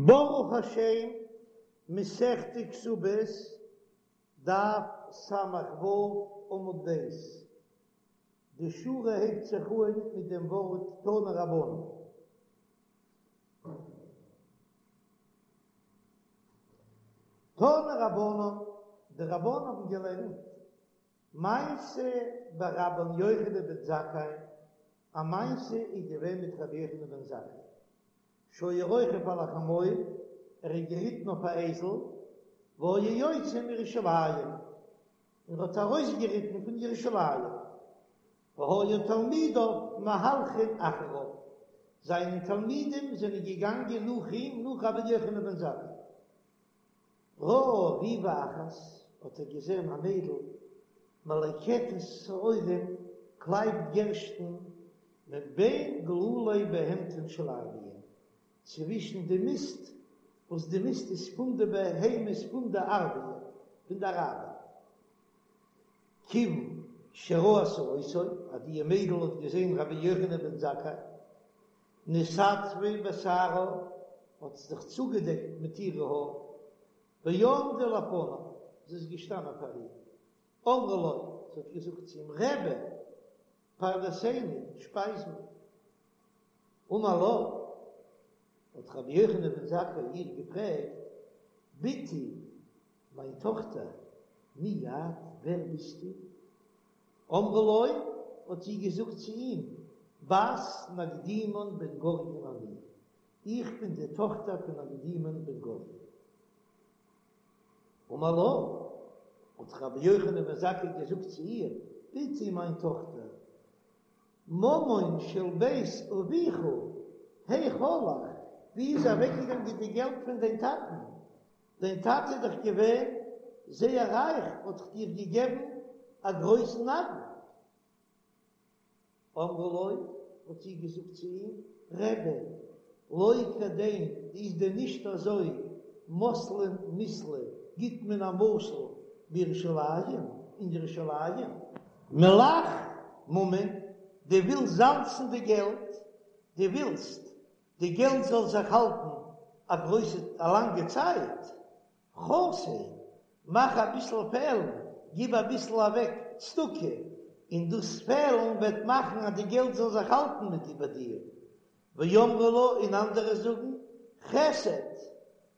ברוך השם, מסכת כתובות, דף ס"ו עמוד ב', די שורה הייבט זיך אן מיט דעם ווארט תנו רבנן. תנו רבנן, די רבנן האבן געלערנט, מעשה ברבן יוחנן בן זכאי, א מעשה איז געווען מיט רבי יוחנן בן זכאי, שהיה רוכב על החמור, ער איז געריטן אויף א אייזל, והיה יוצא מירושלים, און האט ארויסגעריטן פון ירושלים, והיו תלמידיו מהלכין אחריו, זיינע תלמידים זענען געגאנגען נאך אים, נאך רבי יוחנן בן זכאי. ראה ריבה אחת, האט ער געזען א מיידל מלקטת שעורים, קלייבט גערשטן, מבין גלולי בהמתן של ערביים, צווישן די מיסט, וואס די מיסט איז פון די בהמות פון די ערביים, פון די אראבער. כיוון שראתה אותו, אז די מיידל האט געזען רבי יוחנן בן זכאי, נתעטפה בשערה, האט זי זיך צוגעדעקט מיט אירע האר, ועמדה לפניו, זי איז געשטאנען פאר אים, אמרה לו, זי האט געזאגט צו אים, רבי, פרנסני, שפייז מיר. אמר לה, האט רבי יוחנן בן זכאי איר געפרעגט, בתי, מיין טאכטער, מי את, ווער ביסטו? אמרה לו, האט זי געזאגט צו אים, בת נקדימון בן גוריון אני, איך בין די טאכטער פון נקדימון בן גוריון. אמר לה, האט רבי יוחנן בן זכאי געזאגט צו איר, בתי מיין טאכטער, ממון של בית אביך היאך הלך, ווי איז אוועקגעגאנגען די געלט פון דיין טאטן? דיין טאטע איז דאך געווען זייער רייך, האט דאך דיר געגעבן א גרויסן נדן. אמרה לו, האט זי געזאגט צו אים, רבי, לא כדין, איז דען נישט אזוי, מתלין מיתלא, גיט מען א משל בירושלים, אין ירושלים, מלח ממון, דו ווילסט זאלצן די געלט, דו ווילסט די געלט זאל זיך האלטן א גרויסע א לאנגע צייט, חסר, מאך אביסל פעלן, גיב אביסל אוועק צדקה, און דאס פעלן וועט מאכן אז די געלט זאל זיך האלטן מיט ביי דיר. ואמרי לה, און אנדערע זאגן, חסד,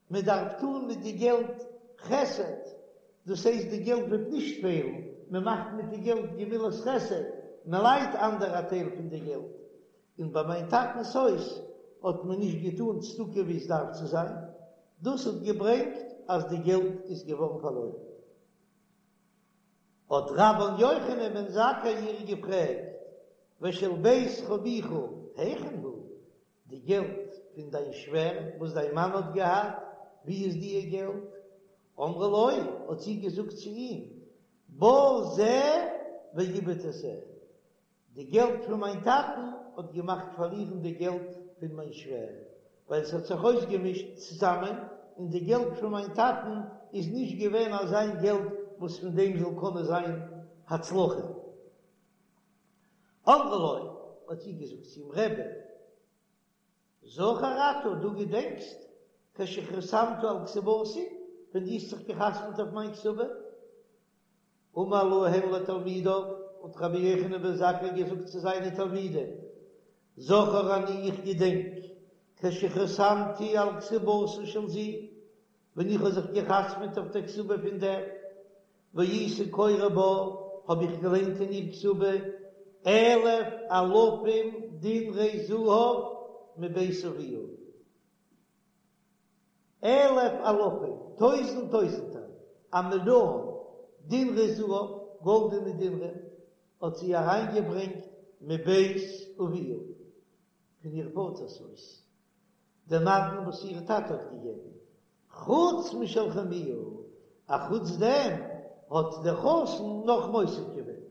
מען דארף טון מיט די געלט חסד, דאס הייסט די געלט וועט נישט פעלן, מען מאכט מיט די געלט גמילת חסד, מען לייט אנדערע א טייל פון די געלט, און ביי מיין טאטנ'ס הויז האט מען נישט געטאן צדקה ווי עס דארף צו זיין, דאס האט געברענגט אז די געלט איז געווארן פארלוירן. האט רבן יוחנן בן זכאי איר געפרעגט, ושל בית חמיך היכן הוא, די געלט פון דיין שווער וואס דיין מאן האט געהאט, ווי איז דיע געלט? אמרה לו, האט זי געזאגט צו אים, בא זה ואיבד את זה, די געלט פון מיין טאטן האט געמאכט פארלירן די געלט פון מיין שווער, ווייל עס האט זיך אויסגעמישט צוזאמען, און די געלט פון מיין טאטן איז נישט געווען אזיין געלט וואס פון דעם זאל קענען זיין הצלחה. אמרה לו, האט זי געזאגט צו אים, רבי, זכור אתה, דו געדענקסט, כשחתמת על כתובתי, ווען דו האסט זיך געחתמעט אויף מיין כתובה? אמר להם לתלמידיו, האט רבי יוחנן בן זכאי געזאגט צו זיינע תלמידים, זכור אני איך געדענק, כשחתמתי על כתובתה של זו, ווען איך האב זיך געחתמעט אויף דער כתובה פון דער, והייתי קורא בה, האב איך געליינט אין איר כתובה, אלף אלפים דינרי זהב מבית אביה. אלף אלפים, טויזנט טויזנטער, א מיליאן, דינרי זהב, גאלדענע דינרים, האט זי אריינגעברענגט מבית אביה, פון איר פאטער'ס הויז, די נדן וואס איר טאטע האט געגעבן, חוץ משל חמיה, אחוץ דעם האט דער חתן נאך מוסיף געווען.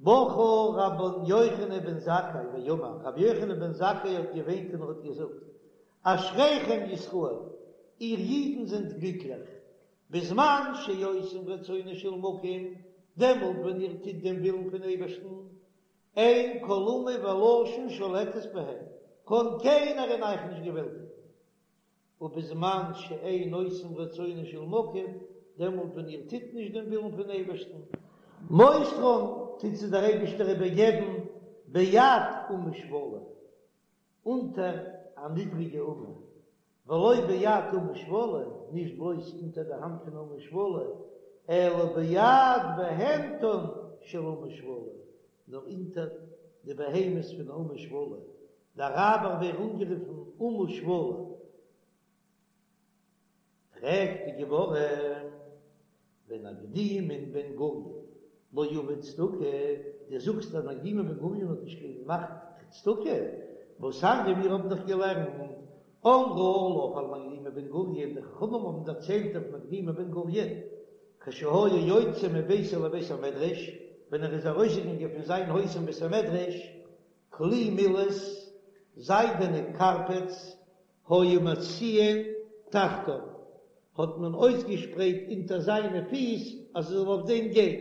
בכה רבן יוחנן בן זכאי ואמר, רבי יוחנן בן זכאי האט געוויינט און ער האט געזאגט, אשריכם ישראל, איר אידן זענט גליקליך, בזמן שעושים רצונו של מקום, דעמאלט ווען איר טוט דעם ווילן פון אייבערשטן, אין כל אומה ולשון שולטת בהם, קען קיינער אין אייך נישט געוועלטיגן. ובזמן שאין עושים רצונו של מקום, דעמאלט ווען איר טוט נישט דעם ווילן פון אייבערשטן, מוסרן, טוט זיי דער אייבערשטער איבערגעבן ביד אומה שפלה, אונטער א נידריגע אומה, ולא ביד אומה שפלה, נישט בלויז אונטער די האנט פון אומה שפלה, אלא ביד בהמתן של אומה שפלה, נאר אונטער די בהמות פון אומה שפלה, די אראבער ווערן אנגערופן אומה שפלה. פרעגט די גמרא, ונקדימון בן גוריון לא עביד צדקה, דו זאגסט אז נקדימון בן גוריון האט נישט געמאכט צדקה, והתניא מיר האבן דאך געלערנט אמרו עליו על נקדימון בן גוריון, די חכמים האבן דערציילט אויף נקדימון בן גוריון, כשהיה יוצא מביתו לבית המדרש, ווען ער איז ארויסגעגאנגען פון זיין הויז אין בית המדרש, כלי מילת, זיידענע קארפעטס, היו מציעין תחתיו, האט מען אויסגעשפרייט אונטער זיינע פיס אז ער זאל אויף דעם גיין.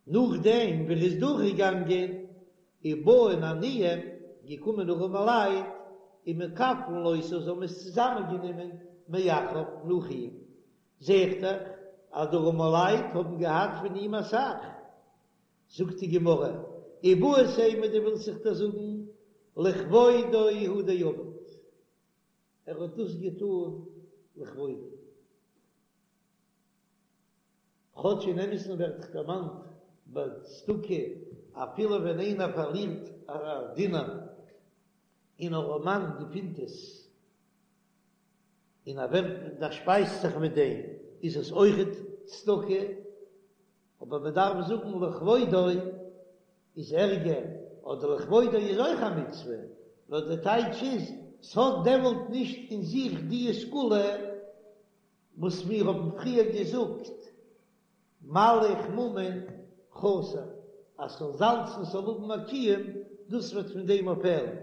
נאכדעם ווי ער איז דורכגעגאנגען, ובאין עניים, געקומען ארעמעלייט, ומקפלין אותו, זיי האבן עס צוזאמענגענומען מאחריו נאך אים. זעהט דאך אז די ארעמעלייט האבן געהאט פון אים אסאך. זאגט די גמרא, איבעית אימא דו ווילסט זיך דאס זאגן לכבודו הוא דעבד, ער האט דאס געטאן לכבודו, כאטש אין אמת'ן ווערט דאך דערמאנט ביי צדקה אפילו ווען איינער פארלירט א דינר און אן ארעמאן געפינט עס און ער ווערט דערשפייזט זיך מיט דעם איז עס אויכעט צדקה. אבער מען דארף זאגן לכבודו איז ערגער, אדער לכבודו איז אויך א מצוה, נאר די טייטש איז, ס'האט דעמאלט נישט אין זיך די סגולה וואס מיר האבן פריער געזאגט, מלח ממון חסר, אז ס'זאל זאלצן ס'זאל האבן א קיום, דאס וועט פון דעם אפפעלן.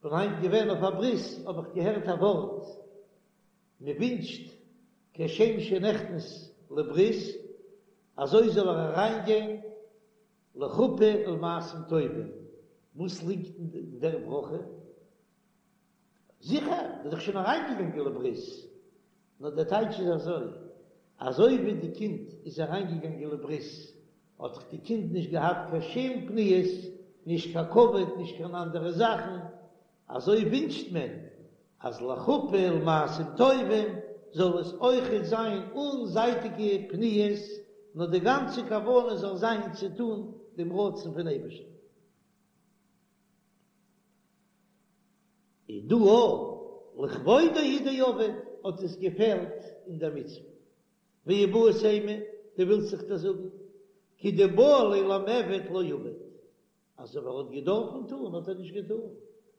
כ'בין היינט געווען אויף א ברית האב איך געהערט א ווארט, מען ווינטשט כשם שנכנס לברית אזוי זאל ער אריינגיין לחופה ולמעשים טובים, וואס ליגט אין דער ברכה? זיכער, מ'איז דאך שוין אריינגעגאנגען לברית, נאר דער טייטש איז אזוי, אזוי ווי די קינד איז אריינגעגאנגען לברית האט דאך די קינד נישט געהאט קיין שום פניות, נישט קיין כבוד, נישט קיין אנדערע זאכן, אזוי ווינטשט מען אז לחופה ולמעשים טובים זאל עס אויכעט זיין אן זייטיגע פניות, נאר די גאנצע כוונה זאל זיין צו טון דעם רצון פון אייבערשטן. איז דא אויך לכבודו הוא דעבד האט עס געפעלט אין דער מצוה. ואיבעית אימא, דו ווילסט זיך דאס זאגן, כדבעי ליה למעבד לא עבד, אז אויב ער האט געדארפן טון האט ער נישט געטון,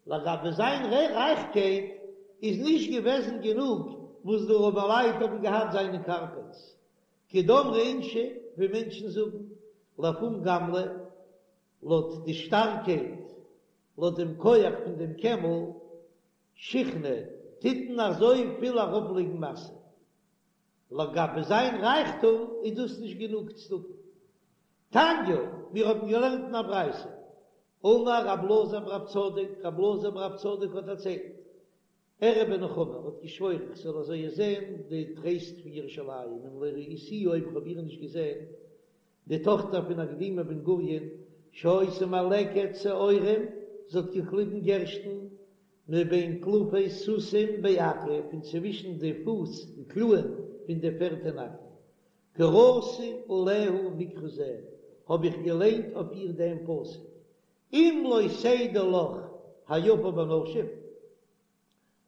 לגבי זיין רייכקייט איז נישט געוועזן גענוג וואס די ארעמעלייט האבן געהאט זיינע קארפעטס, כדאמרי אינשי ווי מענטשן זאגן, לפום גמלא, לויט די שטארקייט, לויט דעם כח פון דעם קעמל, שיחנא, טוט מען אזוי פיל ארויפלייגן משא. לגבי זיין רייכטום איז דאס נישט גענוג צדקה. תניא, מיר האבן געלערנט אין א ברייתא, אמר רב אלעזר ברב צדוק, רב אלעזר ברב צדוק האט דערציילט, אראה בנחמה, ער האט געשוואוירן איך זאל אזוי זען די טרייסט פון ירושלים, אם לא ראיתיה אויב איך האב איר נישט געזען, די טאכטער פון נקדימון בן גוריון, שהיתה מלקטת שעורים, זי האט געקליבן גערשטן, מבין טלפי סוסים בעכו, פון צווישן די פוס, די קלאען, פון די פערד אין עכו. קראתי עליה מקרא זה, האב איך געליינט אויף איר דעם פסוק, אם לא תדעי לך היפה בנשים,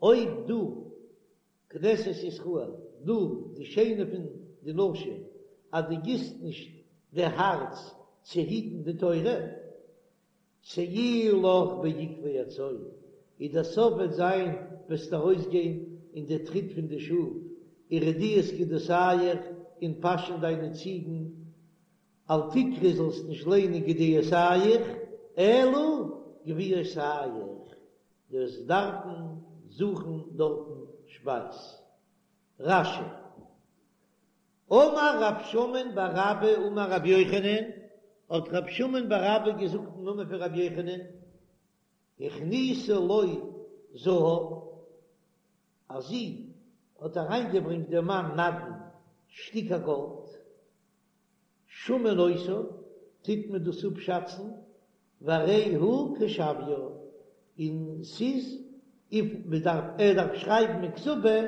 אויב דו, כנסת ישראל, דו, די שיינע פון די נשים, אז דו גיסט נישט די הארץ צו היטן די תורה, צאי לך בעקבי הצאן, איז דער סוף וועט זיין וועסטו ארויסגיין אין די טריט פון די שאף, ורדיית גדיותיך, און פאשען דיינע ציגן, אל תקרי זאלסט נישט ליינען גדיותיך, אלא גוויותיך, דו וועסט דארפן זוכן דארטן שפייז. רש"י. אמר רב שמן בר אבא אמר רבי יוחנן, האט רב שמן בר אבא געזאגט אין נאמען פון רבי יוחנן, הכניסו לו. זהב, אז זי האט אריינגעברענגט דעם מאן נדן שטיקער גאלד, שמין אותו, טוט מען דאס אפשאצן, והרי הוא כשוויה, און ס'איז וויפיל מ'דארף, ער דארף שרייבן אין כתובה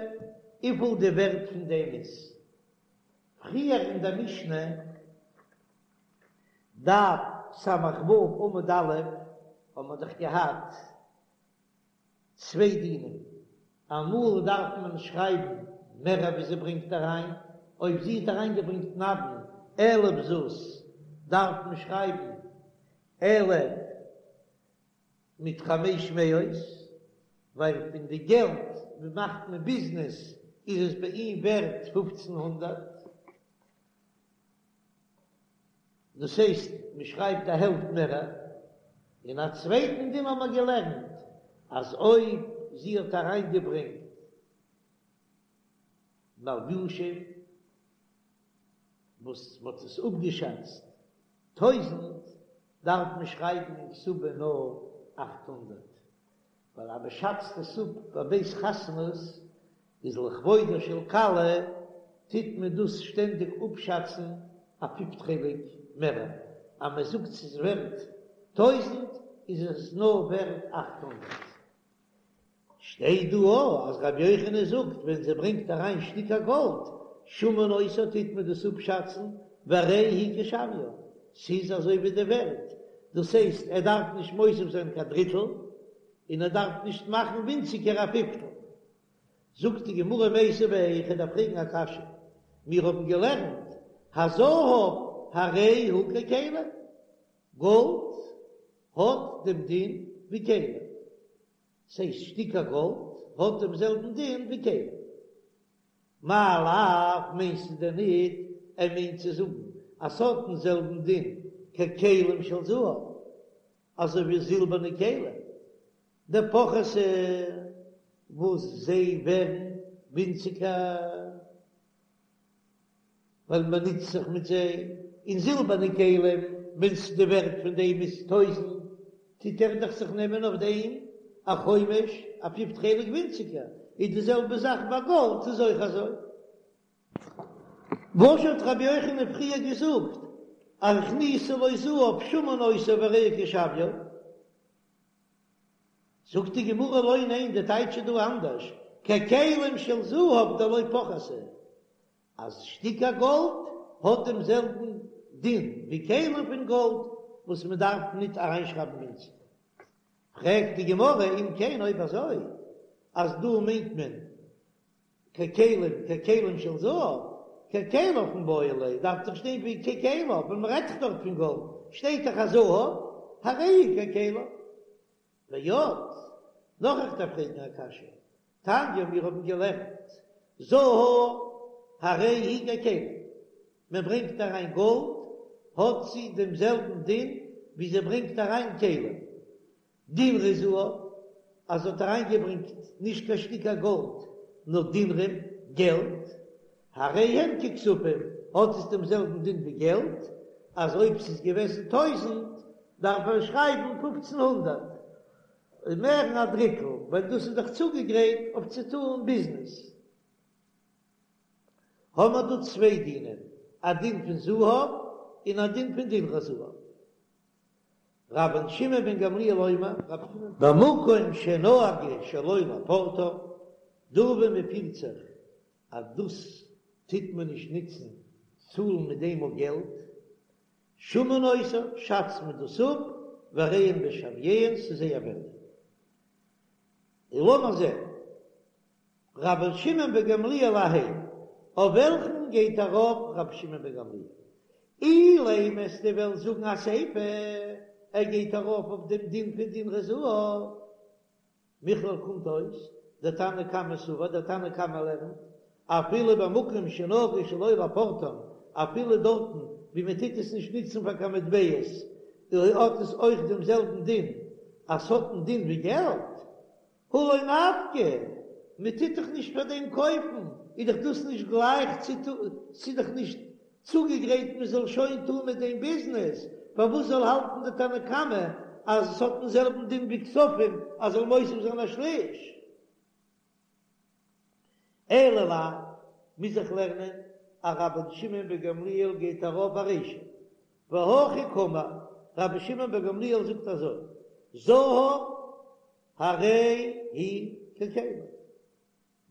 וויפיל די ווערט פון דעם איז. פריער אין דער משנה, דף ס"ו עמוד א', האבן מיר דאך געהאט צוויי דינים, אמאל דארף מען שרייבן מער ווי זי ברענגט אריין, אויב זי האט אריינגעברענגט נדן אלף זוז דארף מען שרייבן אלף מיט חמש מאות, ווייל פון די געלט ווי מאכט מען ביזנעס איז עס ביי אים ווערט 1500. דאס הייסט מען שרייבט א העלפט מער, און א צווייטן דין האבן מיר געלערנט אז אויב זי האט אריינגעברענגט מלבושים וואס מען האט עס אפגעשאצט טויזענט דארף מען שרייבן אין כתובה נאר 800, ווייל אז מען שאצט עס אפ ביי בית חתנות איז לכבודה של כלה טוט מען דאס שטענדיג אפשאצן א פיפט חלק מער, אז מען זאגט ס'איז ווערט טויזענט איז עס נאר ווערט 800. שטייט דא אויך אז רבי יוחנן זאגט ווען זי ברענגט אריין שטיקער גאלד שמין אותו טוט מען דאס אפשאצן והרי הוא כשוויה, ס'איז אזוי ווי די ווערט, דאס הייסט ער דארף נישט מוסיף זיין קיין דריטל און ער דארף נישט מאכן ווינציגער א פיפטל. זאגט די גמרא מיתיבי, איך דארף פרעגן א קשיא, מיר האבן געלערנט הזהב הרי הוא ככלים, גאלד האט דעם דין ווי כלים, ס'הייסט שטיקער גאלד האט דעם זעלבן דין ווי כלים. מאי לאו מיינסטו דען ניט ער מיינט צו זאגן אז ס'האט דעם זעלבן דין ככלים של זהב אזוי ווי זילבערנע כלים דפחתי וואס זיי ווערן ווינציגער. ווייל מען נוצט זיך מיט זיי, און זילבערנע כלים, ווען די ווערט פון דעם איז טויזענט, טוט ער דאך זיך נעמען אויף דעם א חומש, א פיפט חלק ווינציגער, איז די זעלבע זאך ביי גאלד איז אויך אזוי. וואס האט רבי יוחנן פריער געזאגט אז הכניסה לו זהב שמין אותו והרי הוא כשוויו? זאגט די גמרא לא ניין די טייטש איז דא אנדערש, ככלים של זהב דלא פחתי, אז שטיקער גאלד האט דעם זעלבן דין ווי כלים פון גאלד וואס מען דארף ניט אריינשרייבן ווינציגער. פרעגט די גמרא אם כן אויב אזוי אז דא מיינט מען ככלים ככלים של זהב ככליו מיבעי ליה דארף דאך שטיין ווי ככליו ווען מען רעדט דאך דארט פון גאלד שטייט דאך אז זהב הרי הוא ככליו. ועוד, נאך איך דארף פרעגן א קשיא, תניא מיר האבן געלערנט זהב הרי הוא ככלים, מען ברענגט אריין גאלד האט זי דעם זעלבן דין ווי זי ברענגט אריין כלים, דינרי זהב, אז זי האט אריינגעברענגט נישט קיין שטיקער גאלד נאר דינרים, געלט, הרי הם ככספים, האט עס דעם זעלבן דין ווי געלט, אז אויב ס'איז געוועזן טויזענט דארף ער שרייבן פופצן הונדערט, מערן א דריטל, ווייל דאס איז דאך צוגעגרייט אויף צו טאן ביזנעס. האבן מיר דא צוויי דינים, א דין פון זהב און א דין פון דינרי זהב. רבן שמעון בן גמליאל אומר, במקום שנהגו שלא לפורטן, דא וואו מען פירט זיך אז דאס טוט מען נישט נוצן צאלן מיט דעם אויף געלט, שמין אותו, שאצט מען דאס אפ, והרי הן בשוויהן, ס'איז זייער ווערט. און לאמיר זען, רבן שמעון בן גמליאל אהייא, אויף וועלכן גייט ארויף רבי שמעון בן גמליאל? אילימא וועסטו וועלן זאגן אסיפא, ער גייט ארויף אויף דעם דין פון דינרי זהב. מכלל קומט אויס, דער תנא קמא סבר, דער תנא קמא לערנט, אפילו במקום שנהגו שלא לפורטן, אפילו דארטן ווי מען טוט עס נישט נוצן פאר קיין מטבעות, האט עס אויך דעם זעלבן דין, אז ס'האט דעם דין ווי געלט. הא לא נפקא, מען טוט דאך נישט פאר דעם קויפן, איז דאך דאס נישט גלייך צו טון, ס'איז דאך נישט צוגעגרייט מען זאל שוין טון מיט דעם ביזנעס, פארוואס זאל האלטן די תנא קמא? אז עס האט דעם זעלבן דין ווי כספים אז זאל מוסיף זיין א שליש. אלא לאו, מוז איך לערנען אז רבן שמעון בן גמליאל גייט ארויף ארישא, והכי קאמר, רבי שמעון בן גמליאל זאגט אזוי, זהב הרי הוא ככלים,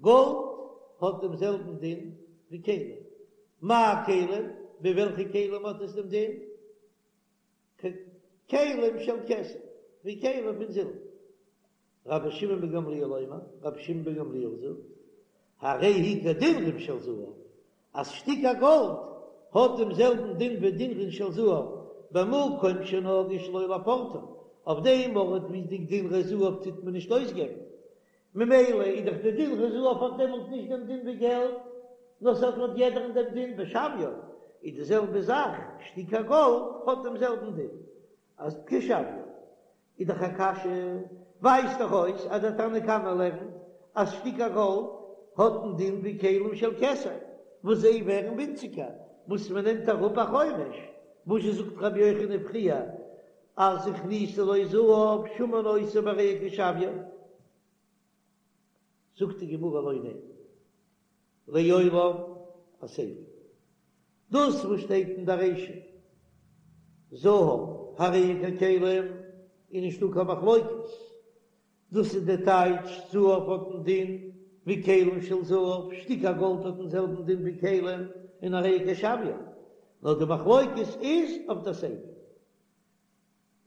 גאלד האט דעם זעלבן דין ווי כלים, מאי כלים, ווי וועלכע כלים האט עס דעם דין? ככלים של כסף, ווי כלים פון זילבער. רבי שמעון בן גמליאל אומר, רבי שמעון בן גמליאל זאגט, הרי הוא כדינרין של זהב, אז שטיקער גאלד האט דעם זעלבן דין ווי דינרין של זהב, במקום שנהגו שלא לפורטן, אויף דעם ארט ווי די דינרי זהב טוט מען נישט אויסגעבן, ממילא איז דאך די דינרי זהב האט דעמאלט נישט דעם דין ווי געלט, נאר ס'האט לויט יעדערן דעם דין בשוויו, איז די זעלבע זאך, שטיקער גאלד האט דעם זעלבן דין אז כשוויו. איז דאך א קשיא, ווייזט דאך אויס אז דער תנא קמא לערנט אז שטיקער גאלד האט דעם דין ווי כלים של כסף, וואס זיי ווערן ווינציגער וואס מען נעמט אראפ א חומש, וואס זשע זאגט רבי יוחנן פריער אז הכניסו לו זהב שמין אותו והרי הוא כשוויו? זאגט די גמרא לא, ניין, לעולם אסיפא. דאס וואס שטייט אין די רישא זהב הרי הוא ככלים איז נישטא קיין מחלוקת, דאס איז די טייטש זהב האט דעם דין ווי כלים של זהב, שטיקער גאלד האט דעם זעלבן דין ווי כלים און הרי הוא כשוויו, נאר די מחלוקת איז אויף די סיפא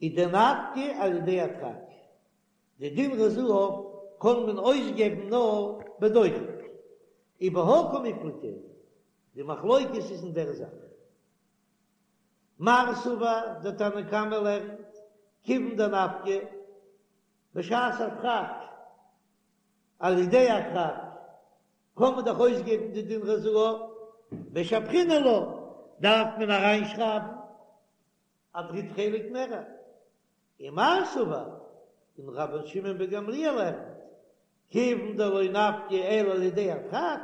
איז דנפקי על ידי הדחק. די דינרי זהב קען מען אויסגעבן נאר בדוחק, ובהא קמיפלגי, די מחלוקת איז אין דער זאך. מר סבר, דער תנא קמא לערנט, כיוון דנפקי, בשעת הדחק, על ידי הדחק, קען מען דאך אויסגעבן די דינרי זהב, משבחינן לה, דארף מען אריינשרייבן א דריט חלק מערער. ומר סבר, און רבן שמעון בן גמליאל לערנט, כיוון דלא נפקי אלא על ידי הדחק,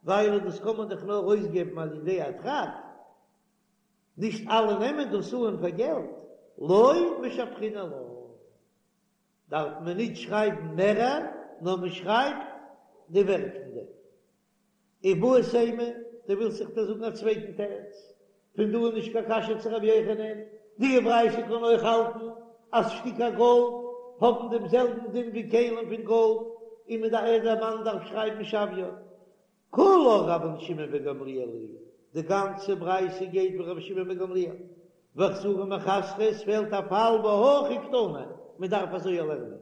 ווייל דאס קען מען דאך נאר אויסגעבן על ידי הדחק, נישט אלע נעמען דאס אן פאר געלט, לא משבחינן לה, דארף מען נישט שרייבן מערער, נאר מען שרייבט די ווערט פון דעם. איבעית אימא, דו ווילסט זיך דא זאגן א צווייטן תירוץ? פון דא איז נישט קיין קשיא צו רבי יוחנן, די ברייתא קען אויך האלטן אז שטיקער גאלד האבן דעם זעלבן דין ווי כלים פון גאלד, און מען דארף דער מאן דארף שרייבן שוויו. כולה רבן שמעון בן גמליאל היא, די גאנצע ברייתא גייט ווי רבי שמעון בן גמליאל, וחסורי מיחסרא, עס פעלט א פאל והכי קתני, מען דארף אזוי לערנען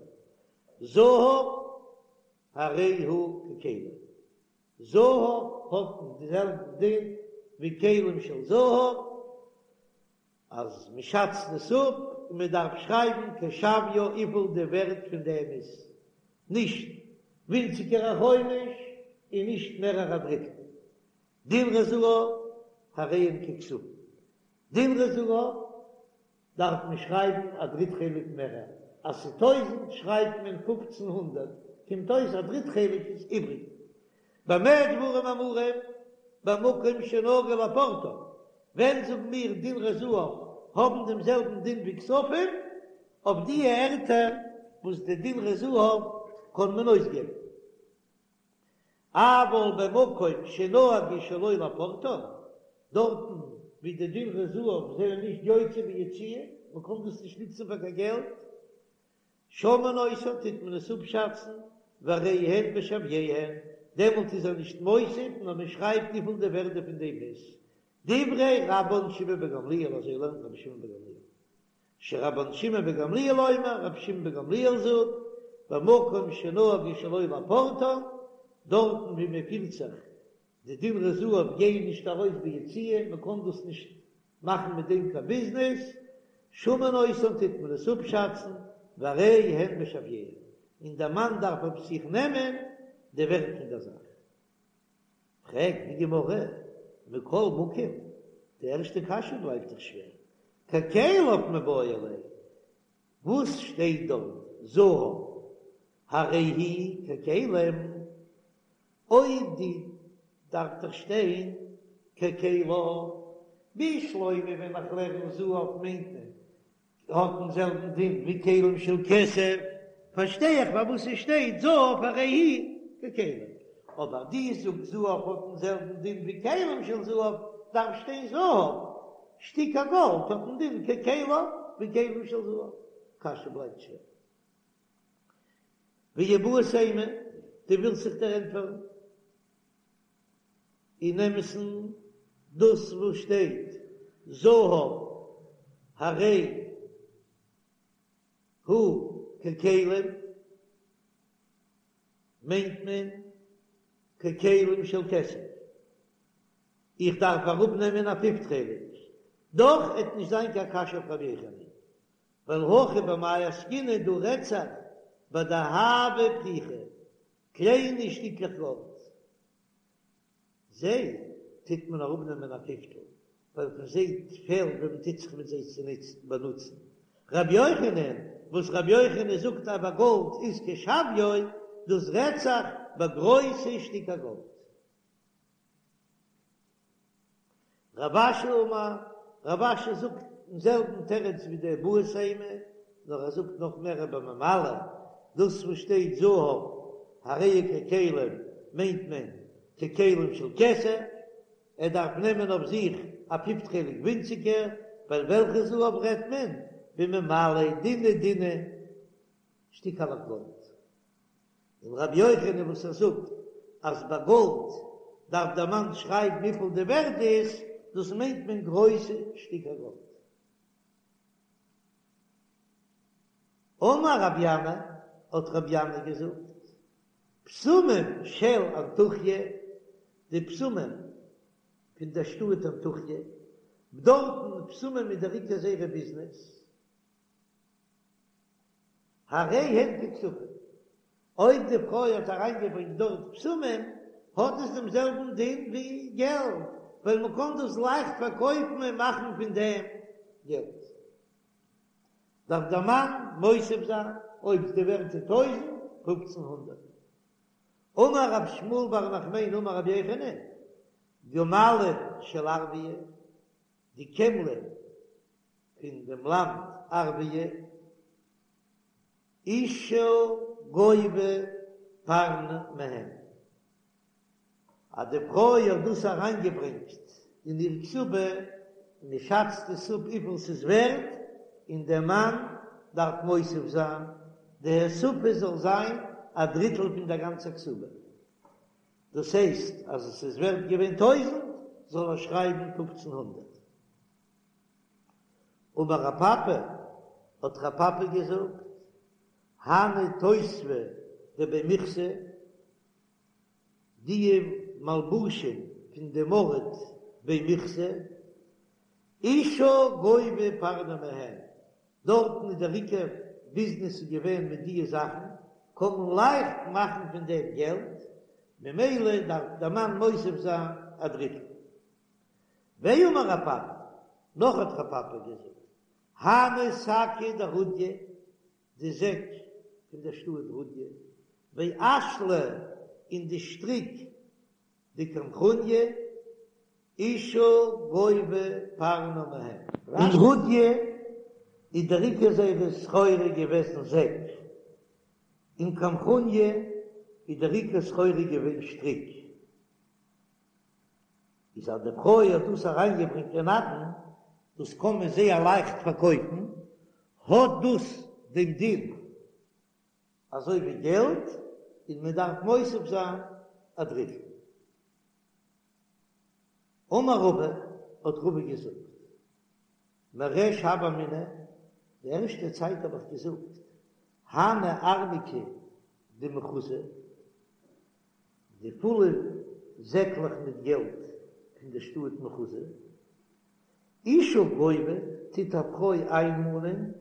זהב. הרי הוא ככלים. זהב האט די זעלבע דין ווי כלים של זהב, אז מען שאצט עס אפ און מען דארף שרייבן כשוויו וויפיל די ווערט פון דעם איז, נישט ווינציגער א חומש און נישט מערער א דריטל. דינרי זהב הרי הן ככספים. דינרי זהב דארף מען שרייבן א דריט חלק מערער, אז ס'איז טויזענט שרייבט מען 1500, קומט אויס א דריט חלק איז איבריג. במה דברים אמורים? במקום שנהגו לפורטן, ווען זאגן מיר דינרי זהב האבן דעם זעלבן דין ווי כספים? אויף די ערטער וואס די דינרי זהב קען מען אויסגעבן. אבל במקום שנהגו שלא לפורטן, דארטן ווי די דינרי זהב זענען נישט יוצא ביציאה, מען קען דאס נישט נוצן פאר קיין געלט, שמין אותן טוט מען עס אפשאצן, והרי הן בשוויהן, דעמאלט איז ער נישט מוסיף נאר מען שרייבט וויפיל די ווערדע פון דעם איז. דברי רבן שמעון בן גמליאל אזוי לערנט רבי שמעון בן גמליאל. שרבן שמעון בן גמליאל אומר, רבי שמעון בן גמליאל זאגט, במקום שנהגו שלא לפורטן, דארטן ווי מען פירט זיך די דינרי זהב גייען נישט ארויס ביציאה, מען קען דאס נישט מאכן מיט דעם קיין ביזנעס, שמין אותן טוט מען עס אפשאצן, והרי הן בשוויהן, און דער מאן דארף אויף זיך נעמען די ווערט פון דער זאך. פרעגט די גמרא, מכל מקום, די ערשטע קשיא בלייבט דאך שווער, ככליו מיבעי ליה, וואס שטייט דארט זהב הרי הוא ככלים, אויב די דארף דאך שטיין ככליו, בשלמא ווען איך לערן זהב מיינט מען. האט דעם זעלבן דין ווי כלים של כסף, פארשטיי איך פארוואס עס שטייט זהב הרי הוא ככלים, אבער דו זאגסט זהב האט דעם זעלבן דין ווי כלים של זהב, דארף שטיין זהב, שטיקער גאלד האט דעם דין ככליו ווי כלים של זהב, קשיא בלייבט שווער. ואיבעית אימא, דו ווילסט זיך דערענטפערן? אין אמת'ן דאס וואס שטייט זהב הרי הוא ככלים מיינט מען ככלים של כסף, איך דארף אראפנעמען א פיפט חלק, דאך עט נישט זיין קיין קשיא אויף רבי יוחנן, ווייל הכא במאי עסקינן דא רעדט זיך בדהבא פריכי, קליינע שטיקלעך גאלד, זיי טוט מען אראפנעמען א פיפטל, ווייל פון זיי פעלט ווען מען טוט זיך מיט זיי צו נוצן באנוצן. רבי יוחנן, וואס רבי יוחנן זאגט אז ביי גאלד איז כשוויו, דאס רעדט זיך ביי גרויסע שטיקער גאלד. רב אשי אמר, רב אשי זאגט דעם זעלבן תירוץ ווי די איבעית אימא, נאר ער זאגט נאך מער בממלא, דאס וואס שטייט זהב הרי הוא ככלים מיינט מען ככלים של כסף, ער דארף נעמען אויף זיך א פיפט חלק ווינציגער, ווייל וועלכע זהב רעדט מען? בממלא דינע דינע שטיקעלעך גאלד. און רבי יוחנן וואס ער זאגט אז ביי גאלד דארף דער מאן שרייבן וויפיל די ווערט איז, דאס מיינט מען גרויסע שטיקער גאלד. אמר רבי ינאי, האט רבי ינאי געזאגט, בשמים של אנטוכיא, די בשמים פון דער שטאט אנטוכיא, דארטן בשמים איז דער עיקר זייערע ביזנעס, הרי הן ככספים, אויב די פרוי האט אריינגעברענגט דארט בשמים, האט עס דעם זעלבן דין ווי געלט, ווייל מען קען דאס לייכט פארקויפן און מאכן פון דעם געלט. דארף דער מאן מוסיף זיין, אויב די ווערט איז טויזנט, פופצן הונדערט. אמר רב שמואל בר נחמני אמר רבי יוחנן, גמלים של ערביא, די קעמלען פון דעם לאנד ערביא, אשה גובה פרנא מהן, אז די פרוי האט דאס אריינגעברענגט אין איר כתובה, און מען שאצט עס אפ וויפיל ס'איז ווערט, און דער מאן דארף מוסיף זיין, די הוספה זאל זיין א דריטל פון דער גאנצער כתובה, דאס הייסט אז עס איז ווערט געווען טויזנט, זאל ער שרייבן פופצן הונדערט. אמר רב פפא, האט רב פפא געזאגט, הני תותבי דבי מיכסי, די מלבושים פון דעם ארט בי מיכסי, אשה גובה פרנא מהן, דארטן איז דער עיקר ביזנעס איז געווען מיט דיע זאכן, קען מען לייכט מאכן פון דעם געלט, ממילא דארף דער מאן מוסיף זיין א דריטל. ואמר רב פפא, נאך האט רב פפא געזאגט, הני שקי דרודיא, די זעק פון דער שטאט רודיא, ואשלי און די שטריק דקמחוניא, אשה גובה פרנא מהן. אין רודיא איז דער עיקר זייערע סחורה געוועזן זעק, אין קמחוניא איז דער עיקר סחורה געווען שטריק. איז אז די פרוי האט דאס אריינגעברענגט אין נדן, דאס קען מען זייער לייכט פארקויפן, האט דאס דעם דין אזוי ווי געלט, און מען דארף מוסיף זיין א דריטל. אמר רבא, האט רבא געזאגט, מריש הוה אמינא, די ערשטע צייט האב איך געזאגט, הני ארנקי דמחוזא, די פולע זעקלעך מיט געלט פון דער שטאט מחוזא, אשה גובה טוט א פרוי איינמאנען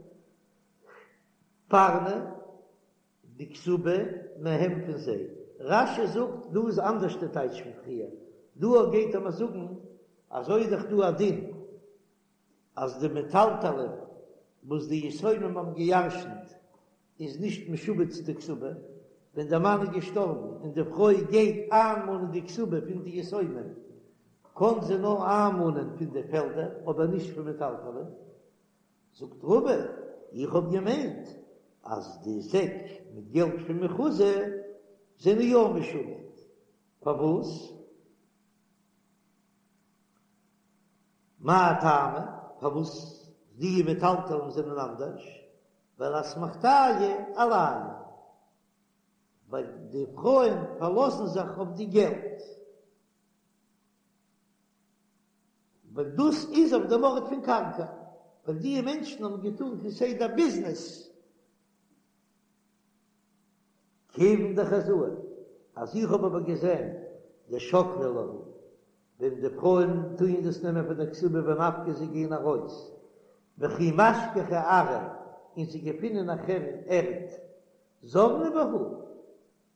פרנא די כתובה מהם פון זיי. רש"י זאגט דא איז אנדערש די טייטש פון פריער, דא גייט ער מיר זאגן אזוי איז דאך דא א דין אז די מטלטלין וואס די יתומים האבן געירשנט איז נישט משועבד צו די כתובה, ווען דער מאן איז געשטארבן און די פרוי גייט איינמאנען די כתובה פון די יתומים, קען זי נאר איינמאנען פון די פעלדער אבער נישט פון מטלטלין. זאגט רבא. איך האב געמיינט אז די זעק מיט געלט פון מחוזא זענען יא משועבד, פארוואס? מאי טעמא? פארוואס די מטלטלין זענען אנדערש? ווייל אסמכתייהו עלייהו, ווייל די פרויען פארלאזן זיך אויף די געלט, ווייל דאס איז אויף דעם ארט פון קרקע, ווייל די מענטשן האבן געטאן כסדר ביזנעס. כיוון דחזאי, אז איך האב אבער געזען דשקלי להו, ווען די פרויען טוען דאס נעמען פון די כתובה ונפקי זיי גייען ארויס, וכי משכחי ארעא, און זיי געפינען נאכהער ערד, זבני בהו,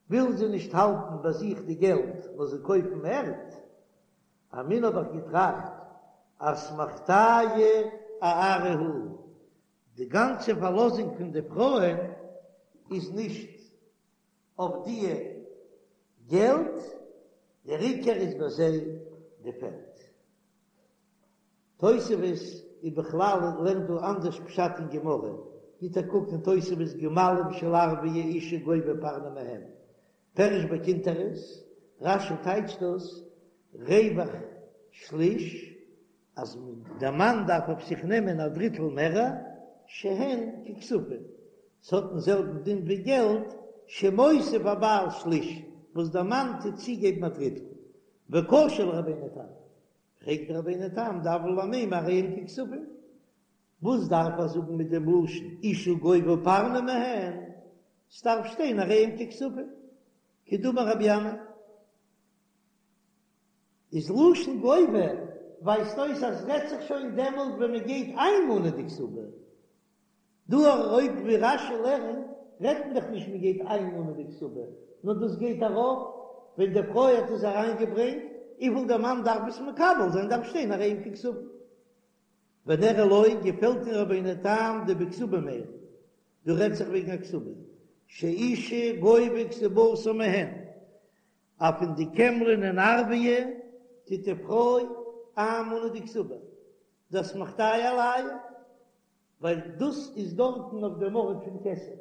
ווילן זיי נישט האלטן ביי זיך די געלט נאר זיי קויפן ערד, אמינא האב איך געטראכט אסמכתייהו אארעא הוא, די גאנצע פארלאזונג פון די פרויען איז נישט אויף די געלט, דער עיקר איז ביי זיי די פעלד. תוספות איז בכלל לערנט דא אנדערש פשט אין גמרא, גיט א קוק אין תוספות גמלים של ערביא אשה גובה פרנא מהם, פירש בקונטרס, רש"י טייטשט דאס רווח שליש, אז דער מאן דארף אויף זיך נעמען א דריטל מער, שהן ככספים, ס'האט דעם זעלבן דין ווי געלט, שמוסיף הבעל שליש, וואס דער מאן טוט צוגעבן א דריטל, וקשה לרבינו תם, פרעגט דער רבינו תם דהוה ליה למימר הרי הן ככספים, וואס דארף ער זאגן מיט דעם לשון אשה גובה פרנא מהן, ס'דארף שטיין הרי הן ככספים, כדאמר רבי ינאי. איז לשון גובה ווייזט אויס אז רעדט זיך שוין דעמאלט ווען מען גייט איינמאנען די כתובה, דא אויב ווי רש"י לערנט רעדט מען דאך נישט מען גייט איינמאנען די כתובה, נאר דאס גייט ארויף ווען די פרוי האט עס אריינגעברענגט, וויפיל דער מאן דארף עס מקבל זיין דארף שטיין הרי הן ככספים. ונראה לו געפעלט אין רבינו תם דבכתובה מיירי, דא רעדט זיך וועגן א כתובה שאשה גובה כתובתה מהן, אז פון די קעמלען אין ערביא טוט די פרוי איינמאנען די כתובה, דאסמכתייהו עלייהו, ווייל דאס איז דארטן אויף דעם ארט פון כסף,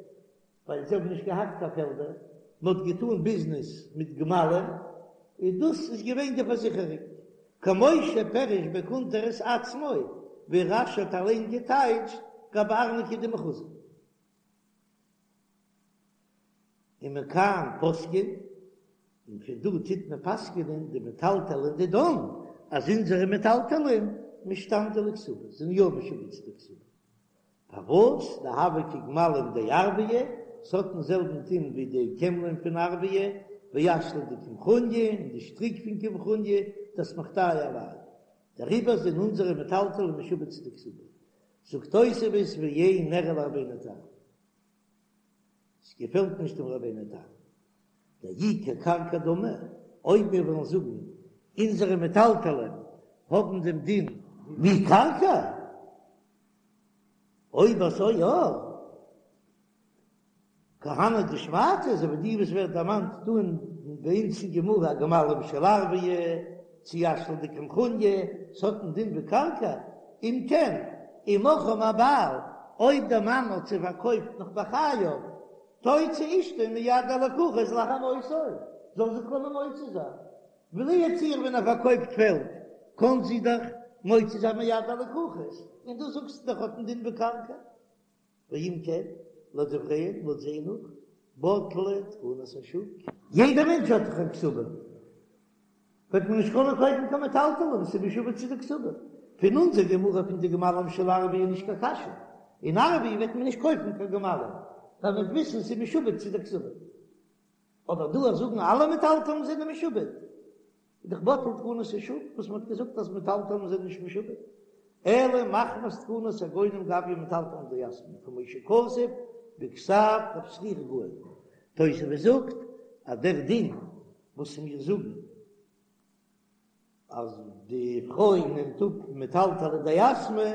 ווייל זיי האבן נישט געהאט קיין פעלדער, מען האט געטאן ביזנעס מיט גמלים, און דאס איז געווען די פארזיכערונג, כמו שפירש בקונטרס עצמו, ווי רש"י האט אליין געטייטשט גבי ארנקי דמחוזא. ומכאן פוסקין, און פון דא טוט מען פסק'נען דמטלטלין דידן, אז אונזערע מטלטלין משתעבדי לכתובה, זענען יא משועבד צו די כתובה. פארוואס דהוו כגמלים דערביא, ס'האט דעם זעלבן דין ווי די קעמלען פון ערביא, ואשלי דקמחוניא, און די שטריק פון קמחוניא, דאסמכתייהו עלייהו. דעריבער זענען אונזערע מטלטלין משועבד צו די כתובה. זאגט תוספות ואין נראה לרבינו תם. ס'געפעלט נישט דעם רבינו תם. דאי כקרקע דמי, אויב מיר וועלן זאגן אונזערע מטלטלין האבן דעם דין ווי קרקע, אויב אזוי יא, כהני דשמעתא, אזוי ווי די וואס ווערט דערמאנט דא אין ביי אונז אין גמרא גמלים של ערביא, צי אשלי דקמחוניא, ס'האט דעם דין ווי קרקע, אם כן, אם מכרם הבעל, אויב דער מאן האט זיי פארקויפט נאך בחייו, תוציא אשתו מיד הלקוחות לאחר מותו, זאל זי קענען מוציא זיין, לו יצוייר ווען ער פארקויפט פעלד, קען זי דאך מוציא זיין מיד הלקוחות, און דא זאגסטו דאך האט דעם דין ווי קרקע. ואם כן, לדבריהם, לויט זיי נאך, בטלה תקנת השוק. יעדער מענטש האט דאך א כתובה, וועט מען נישט קענען קויפן קיין מטלטלין, ס'איז משועבד צו די כתובה. פון אונזער גמרא פון די גמלים של ערביא איז נישט קיין קשיא, אין ערביא וועט מען נישט קויפן קיין גמלים, ווייל מ'וועט וויסן ס'איז משועבד צו די כתובה. אבער דא אז זאגן אלע מטלטלין זענען משועבד, איז דאך בטל תקנת השוק וואס מ'האט געזאגט אז מטלטלין זענען נישט משועבד, אלא מחמת תקנת הגונים גביא מטלטלין דיתמי, כמו שכתוב בכתב רב שרירא גאון. תוספות זאגט אז דער דין וואס מיר זאגן אז די פרוי נעמט אפ מטלטלי דיתמי,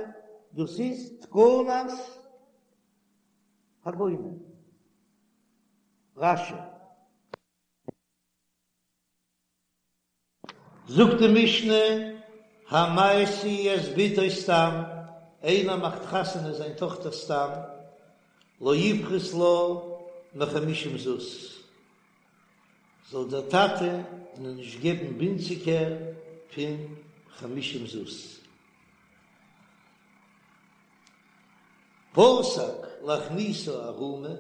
דאס איז תקנת הגונים. רש"י. זאגט די משנה, המשיא את בתו סתם, איינער מאכט חתונה זיין טאכטער סתם. לא יפחות לה מחמישים זוז, זאל דער טאטע איר נישט געבן ווינציגער פון חמישים זוז. פסק להכניסה ערומה,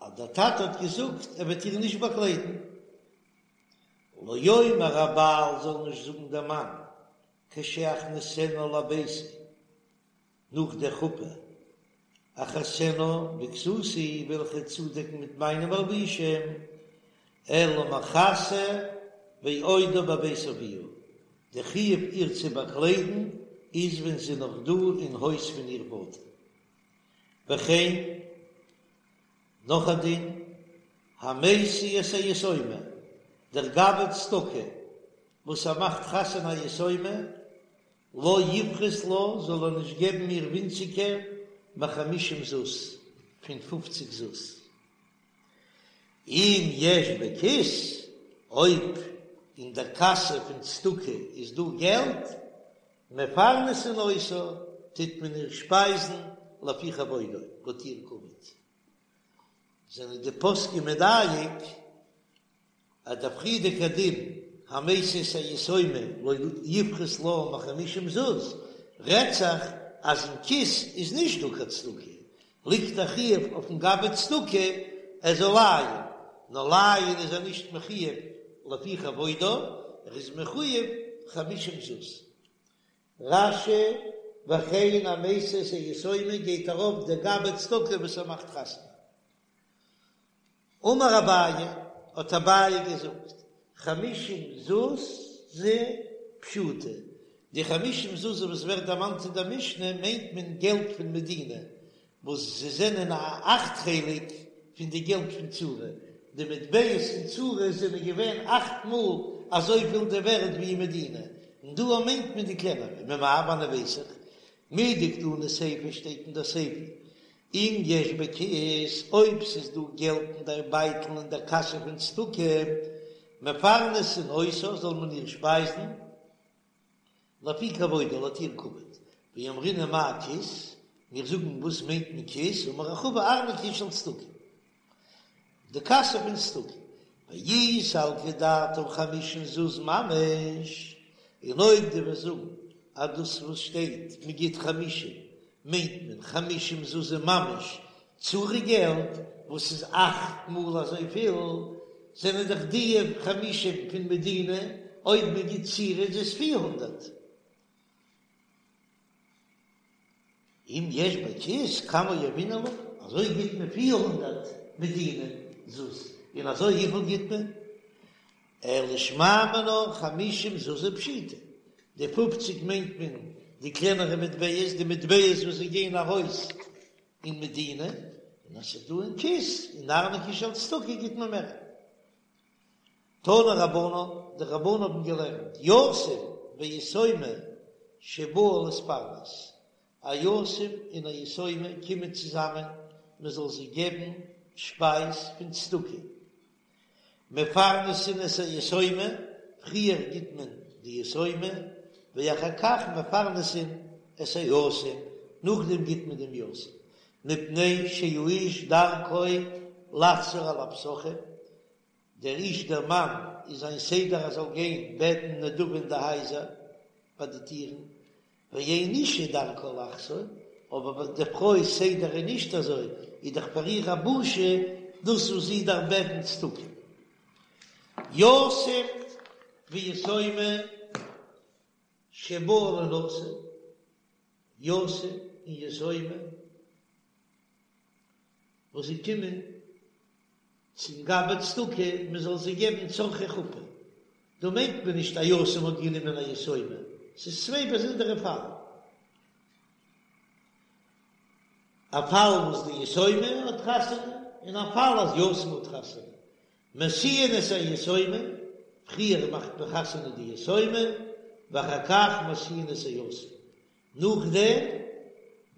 אז דער טאטע האט געזאגט ער וועט איר נישט באקליידן, לא יאמר הבעל זאל נישט זאגן דער מאן כשאכניסנה לביתי, נאך דער חופה, אכסנה בכסותי וועל איך איר צודעקן מיט מיינע מלבושים, אלא מכסה ועודה בבית אביה, די חיוב איר צו באקליידן איז ווען זי איז נאך דא אין הויז פון איר פאטער. וכן, נאך א דין, המשיא את היתומה, דער גבאי צדקה וואס ער מאכט חתונה א יתומה, לא יפחות לה, זאל ער נישט געבן איר ווינציגער מחמישים זוז, פון פופציג זוז. אם יש בכיס, אויב אין דער קאסע פון צדקה איז דא געלט, מפרנסין אותה, טוט מען איר שפייזן לפי כבודה, לויט איר כבוד. זענען די פוסקים מדייק אז דער פריערדיגער דין המשיא את היתומה לא יפחות לה מחמישים זוז רעדט זיך אז אין כיס איז נישט דא קיין צדקה, ליגט א חיוב אויפן גבאי צדקה ער זאל לייען, נאר לייען איז ער נישט מחויב לפי כבודה, ער איז מחויב חמישים זוז. רש"י, וכן המשיא את היתומה גייט ארויף דער גבאי צדקה וואס ער מאכט חתונה. אמר אביי, האט אביי געזאגט, חמישים זוזי פשיטי, די חמישים זוזי וואס ווערט דערמאנט אין דער משנה מיינט מען געלט פון מדינה, וואס זיי זענען א אכט חלק פון די געלט פון צורי, די מטבעות אין צורי זענען געווען אכט מאל אזויפיל די ווערד ווי אין מדינה, און דא מיינט מען די קלענערע, ממאי וואנען ווייס איך? מדקתני סיפא שטייט אין דער סיפא אם יש בכיס, אויב ס'איז דא געלט אין דער בייטל אין דער קאסע פון צדקה, מפרנסין אותה, זאל מען איר שפייזן, לפי כבודה, לויט איר כבוד. ואמרינן מאי כיס, מיר זאגן וואס מיינט מען כיס, אמר רחבא ארנקי של צדקה. די קאסע פון צדקה, ואי סלקא דעתך חמישים זוז ממש, און אויב דו וועסט זאגן אז דאס וואס שטייט מען גיט חמישים מיינט מען חמישים זוז ממש צורי געלט וואס איז אכט מאל אזויפיל, זענען דאך די חמישים פון מדינה, אויב מען גיט צורי איז עס 400. אם יש בכיס כמה יהבינן לה, אזוי גיט מען 400 מדינה זוז, און אזוי וויפיל גיט מען? אלא שמע מינה חמישים זוזי פשיטי, די פופציג מיינט מען די קלענערע מטבעות, די מטבעות וואס זיי גייען ארויס אין מדינה, און אז ס'איז דא אין כיס, אין ארנקי של צדקה גיט מען מער. תנו רבנן, די רבנן האבן געלערנט, יתום ויתומה שבאו להתפרנס, א יתום און א יתומה קומען צוזאמען מען זאל זיי געבן שפייז פון צדקה, מפרנסין את היתומה, פריער גיט מען די יתומה, ואחר כך מפרנסין את היתום, נאכדעם גיט מען דעם יתום, מפני שהאיש דרכו לחזור על הפתחים, דער איש דער מאן איז זיין סדר ער זאל גיין בעטן נדבה אין די הייזער ביי די טירן, ואין אשה דרכה לחזור, אבער ביי די פרוי סדר איז נישט אזוי, איז דאך פאר איר א בושה דאס וואס זי דארף בעטן צדקה. יתום ויתומה שבאו לינשא, יתום און יתומה וואס זיי קומען צום גבאי צדקה מען זאל זיי געבן צרכי חופה, דא מיינט מען נישט א יתום האט גענומען א יתומה, ס'איז צוויי באזונדערע פאלן, א פאל וואס די יתומה האט חתונה און א פאל אז יתום האט חתונה, משיאין את היתומה, פריער מאכט מען חתונה די יתומה, ואחר כך משיאין את היתום, נאכדעם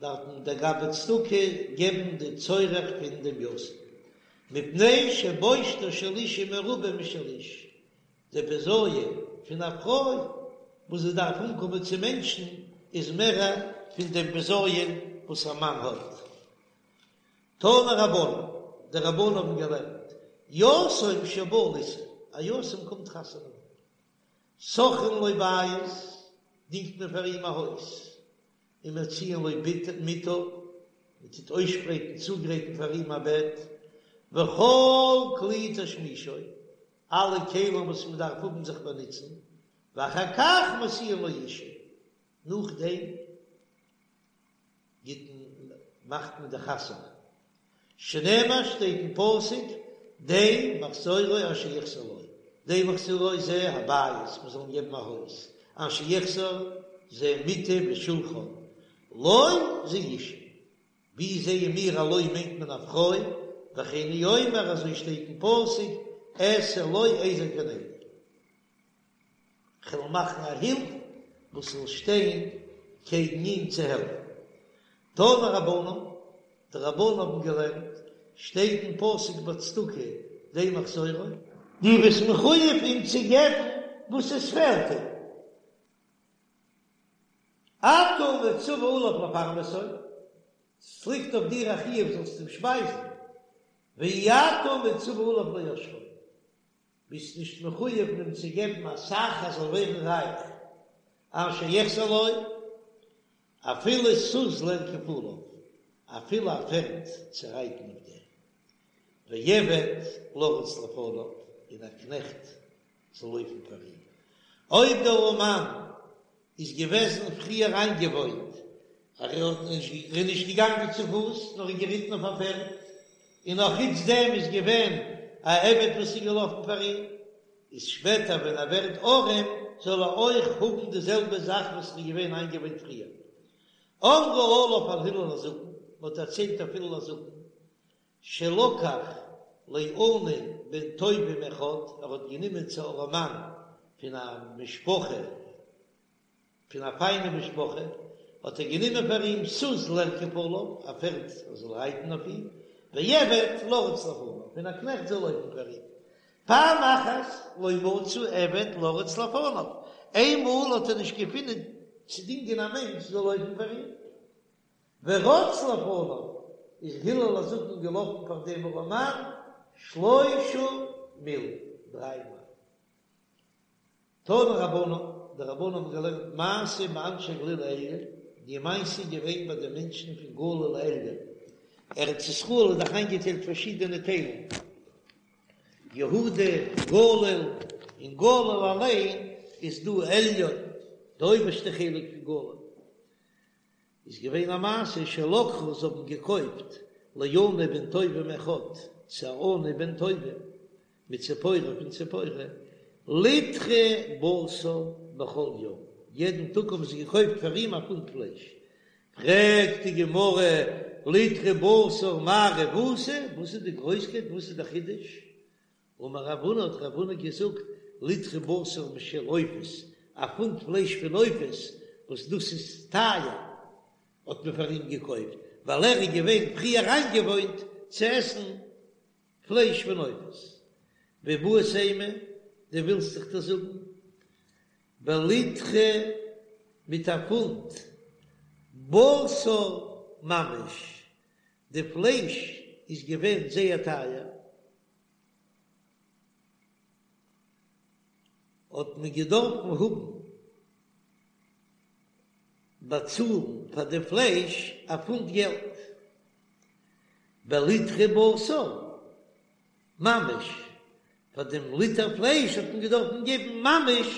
דארף מען דער גבאי צדקה געבן די צורך פון דעם יתום, מפני שבושתה של אשה מרובה משל איש, די בזיון פון א פרוי וואס זי דארף אנקומען צו מענטשן איז מערער פון דעם בזיון וואס א מאן האט. תנו רבנן, די רבנן האבן געלערנט, יתום שבא לישא, א יתום קומט חתונה האבן, שוכרין לו בית, דינגט מען פאר אים א הויז, ומציעין לו מיטה, מען טוט אויסשפרייטן צוגרייטן פאר אים א בעט, וכל כלי תשמישו, אלע כלים וואס מען דארף האבן זיך באנוצן, ואחר כך משיאין לו אישה, נאכדעם גיט מען מאכט מען די חתונה, שנאמר שטייט אין פסוק די מחזורו אשר יחסר לו, די מחזורו זה הבית, מען זאל אים געבן א הויז, אשר יחסר זה מיטה ושולחן, לו זה אישה, ווי זעען מיר א לו מיינט מען א פרוי, וכן הוא אומר אזוי שטייט אין פסוק אעשה לו עזר כנגדו. כ'וועל מאכן א הילף וואס זאל שטיין קעגן אים צו העלפן. תנו רבנן, די רבנן האבן געלערנט, שטייט אין פסוק ביי צדקה די מחזורו. דו ביסט מחויב אים צו געבן וואס עס פעלט אים. אתה מצווה עליו לפרנסו, ס'ליגט אויף דיר א חיוב זאלסט אים שפייזן, ואי אתה מצווה עליו לעשרו. ביסט נישט מחויב אים צו געבן אסאך ער זאל ווערן רייך, אשר יחסר לו, אפילו סוס לרכוב עליו, אפילו א פערד צו רייטן אויף דעם, ועבד לרוץ לפניו, און א קנעכט זאל לויפן פאר אים. אויב דער ארעמאן איז געוועזן פריער איינגעוואוינט אז ער האט נישט ער איז נישט געגאנגען צו פוס נאר איז געריטן אויף א פערד, און נאך חוץ דעם איז געווען א עבד וואס איז געלאפן פאר אים, איז שפעטער ווען ער ווערט ארעם זאל ער אויך האבן די זעלבע זאך וואס ער איז געווען איינגעוואוינט פריער. אמרו עליו על הלל הזקן, מען האט דערציילט אויף הלל הזקן, שלקח לעני בן טובים אחד, ער האט גענומען צו ארעמאן פון א משפחה, פון א פיינע משפחה, האט ער גענומען פאר אים סוס לרכוב עליו, א פערד ער זאל רייטן אויף אים, ועבד לרוץ לפניו, און א קנעכט זאל לויפן פאר אים. פעם אחת לא מצא עבד לרוץ לפניו, איינמאל האט ער נישט געפונען צו דינגען א מענטש זאל לויפן פאר אים. ורץ לפניו, איז הלל הזקן געלאפן פאר דעם ארעמאן שלושה מיל, דריי מייל. תנו רבנן, די רבנן האבן געלערנט מעשה באנשי גליל העליון, די מעשה איז געווען ביי די מענטשן פון גליל העליון, ארץ ישראל איז דאך איינגעטיילט פארשידענע טיילן, יהודה, גליל, אין גליל אליין איז דא עליון, די אויבערשטע חלק פון גליל. איז געווען א מעשה שלקחו זיי האבן געקויפט לעני בן טובים אחד צו א עני בן טובים מציפורי פון ציפורי ליטרא בשר בכל יום יעדן טאג האבן זיי געקויפט פאר אים א פונט פלייש פרעגט די גמרא ליטרא בשר מאי רבותא וואס איז די גרויסקייט וואס איז די חידוש אמר רב הונא האט רב הונא געזאגט, ליטרא בשר משל עופות, א פונט פלייש פון עופות, וואס דאס איז טייער, האט מען פאר אים געקויפט, ווייל ער איז געווען פריער איינגעוואוינט צו עסן פלייש פון עופות. ואיבעית אימא, דו ווילסט וועל איך דיר זאגן, בליטרא מיט א פונט בשר ממש, די פלייש איז געווען זייער טייער, האט מען געדארפן האבן באצאלן פאר די פלייש א פונט געלט, בליטרא בשר ממש, פאר דעם ליטער פלייש האט מען געדארפן געבן ממש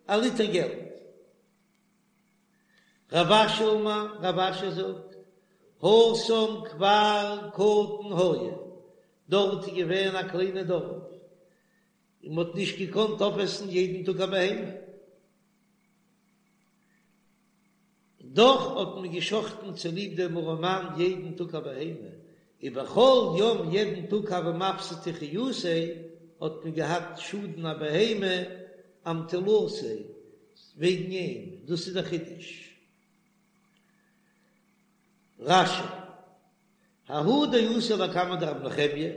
א ליטער געלט. רב אשי אמר, רב אשי זאגט, התם כפר קטן היה, דארט איז געווען א קליינע דארף, און מען האט נישט געקאנט אויפעסן יעדן טאג א בהמה, דאך האט מען געשחטן צוליב דעם ארעמאן יעדן טאג א בהמה, ובכל יום יעדן טאג הוה מפסדי חיותיה, האט מען געהאט שאדן א בהמה אמטולתיה, וועגן אים, דאס איז דער חידוש. רש"י, ההוא דאתא לקמיה דרבי נחמיה,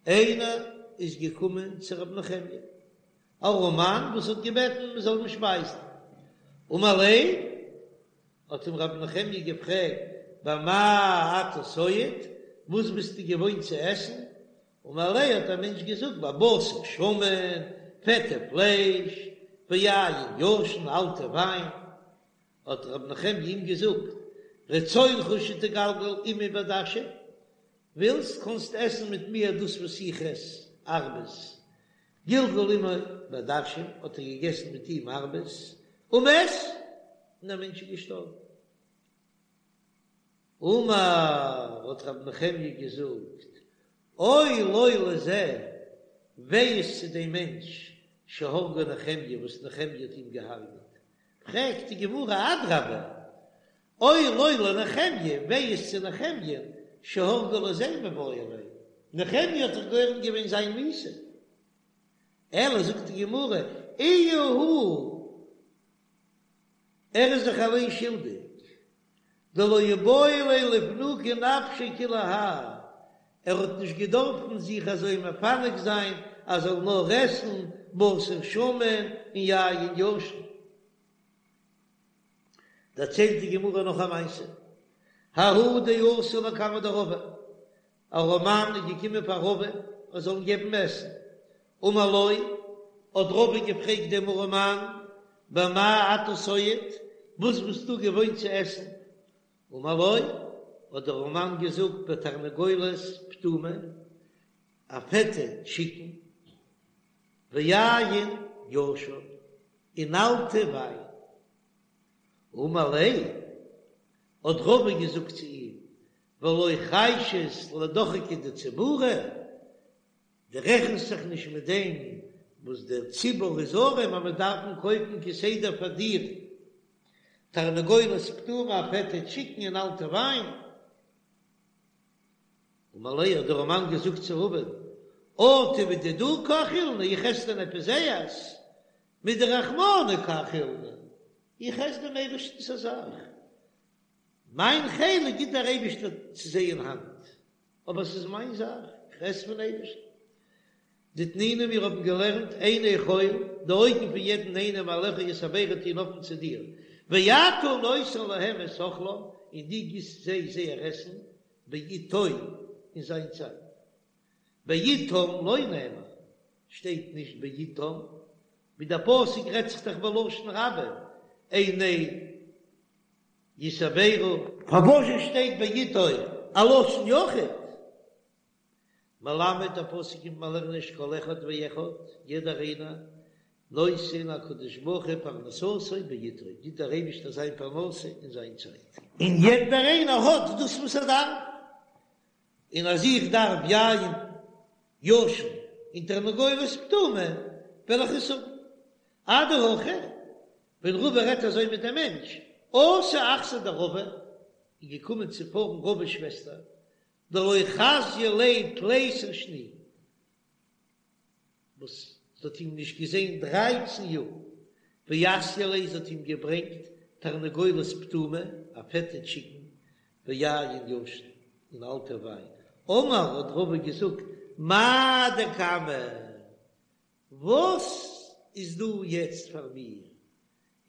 איינער איז געקומען צו רבי נחמיה, א ארעמאן וואס האט געבעטן מען זאל אים שפייזן, אמר ליה, האט אים רבי נחמיה געפרעגט, במה אתה סועד? וואס ביסטו געוואוינט צו עסן? אמר ליה האט דער מענטש געזאגט בבשר שמן, פעטע פלייש, ויין ישן, אלטע וויין. האט ר' נחמיה אים געזאגט, רצונך שתגלגל עמי בעדשים, ווילסט קאנסט עסן מיט מיר דאס וואס איך עס, ארבעס. גלגל עמו בעדשים, האט ער געגעסן מיט אים ארבעס, ומת, און דער מענטש איז געשטארבן. אמר, האט רבי נחמיה געזאגט, אוי לו לזה, וויי איז צו דעם מענטש, שהרגו נחמיה, וואס נחמיה האט אים געהארגעט. פרעגט די גמרא, אדרבה, אוי לו לנחמיה, וויי איז צו נחמיה, שהרגו לזה מיבעי ליה, נחמיה האט דאך גורם געווען זיין מיתה. אלא זאגט די גמרא, איהו הוא, ער איז זיך אליין שולדיג, דלא איבעי ליה לפנוקי נפשיה כולי האי, ער האט נישט געדארפן זיך אזוי מפנק זיין אז ער זאל נאר עסן בשר שמן און יין ישן. דערציילט די גמרא נאך א מעשה, ההוא דאתא לקמיה דרבא, א ארעמאן איז געקומען פאר רבא ער זאל אים געבן עסן, אמר לו, האט רבא געפרעגט דעם ארעמאן, במה אתה סועד, וואס ביסטו געוואוינט צו עסן? אמר לו, האט דער ארעמאן געזאגט, בתרנגולת פטומה, א פעטע טשיקן, ויין ישן, און אלטע וויין. אמר ליה, האט רבא געזאגט צו אים, ולא חיישת לדוחקא דציבורא, דו רעכנסט זיך נישט מיט דעם וואס דער ציבור איז ארעם אז מען דארף קויפן כסדר פאר דיר תרנגולת פטומה א פעטע טשיקן און אלטע וויין. אמר ליה האט דער ארעמאן געזאגט צו רבא'ן, אטו מדידהו קא אכילנא, איך עס דען עפעס זייערס? מדרחמנא קא אכילנא, איך עס דעם אייבערשטנ'ס א זאך, מיין חלק גיט דער אייבערשטער צו זיי אין האנט, אבער עס איז מיין זאך, איך עס פון אייבערשטן. דתנינא מיר האבן געלערנט עיני כל, די אויגן פון יעדן איינעם אליך יתברו טוען האפן צו דיר, ואתה נותן להם את אכלם, און דו גיסט זיי זייער עסן, בעתו, אין זיין צייט. בעתם לא נאמר, שטייט נישט בעתם, ווי דער פסוק רעדט זיך דאך בלשון רבים, עיני יתברו. פארוואזשע שטייט בעתו א לשון יחיד? מלמד דער פסוק קומט מיר לערנען שכל אחד ואחד, יעדער איינער, נותן הקדוש ברוך הוא פרנסתו בעתו, גיט דער אייבישטער זיין פרנסה אין זיין צייט. און יעדער איינער האט דאס וואס ער דארף, און אז איך דארף יין ישן און תרנגולת פטומה וועל איך עס האבן. אדהכי, ווען רבא רעדט אזוי מיט דעם מענטש, אתא אחתיה דרבא, איז געקומען צו פארן רבא'ס שוועסטער, דלא חזיא ליה תליסר שני, וואס זי האט אים נישט געזען דרייצן יאר, ואתיא ליה זי האט אים געברענגט תרנגולת פטומה, א פעטע טשיקן, ויין ישן, און אלטע וויין. אמר האט רבא געזאגט, מאי דקמא, וואס איז דא יעצט פאר מיר?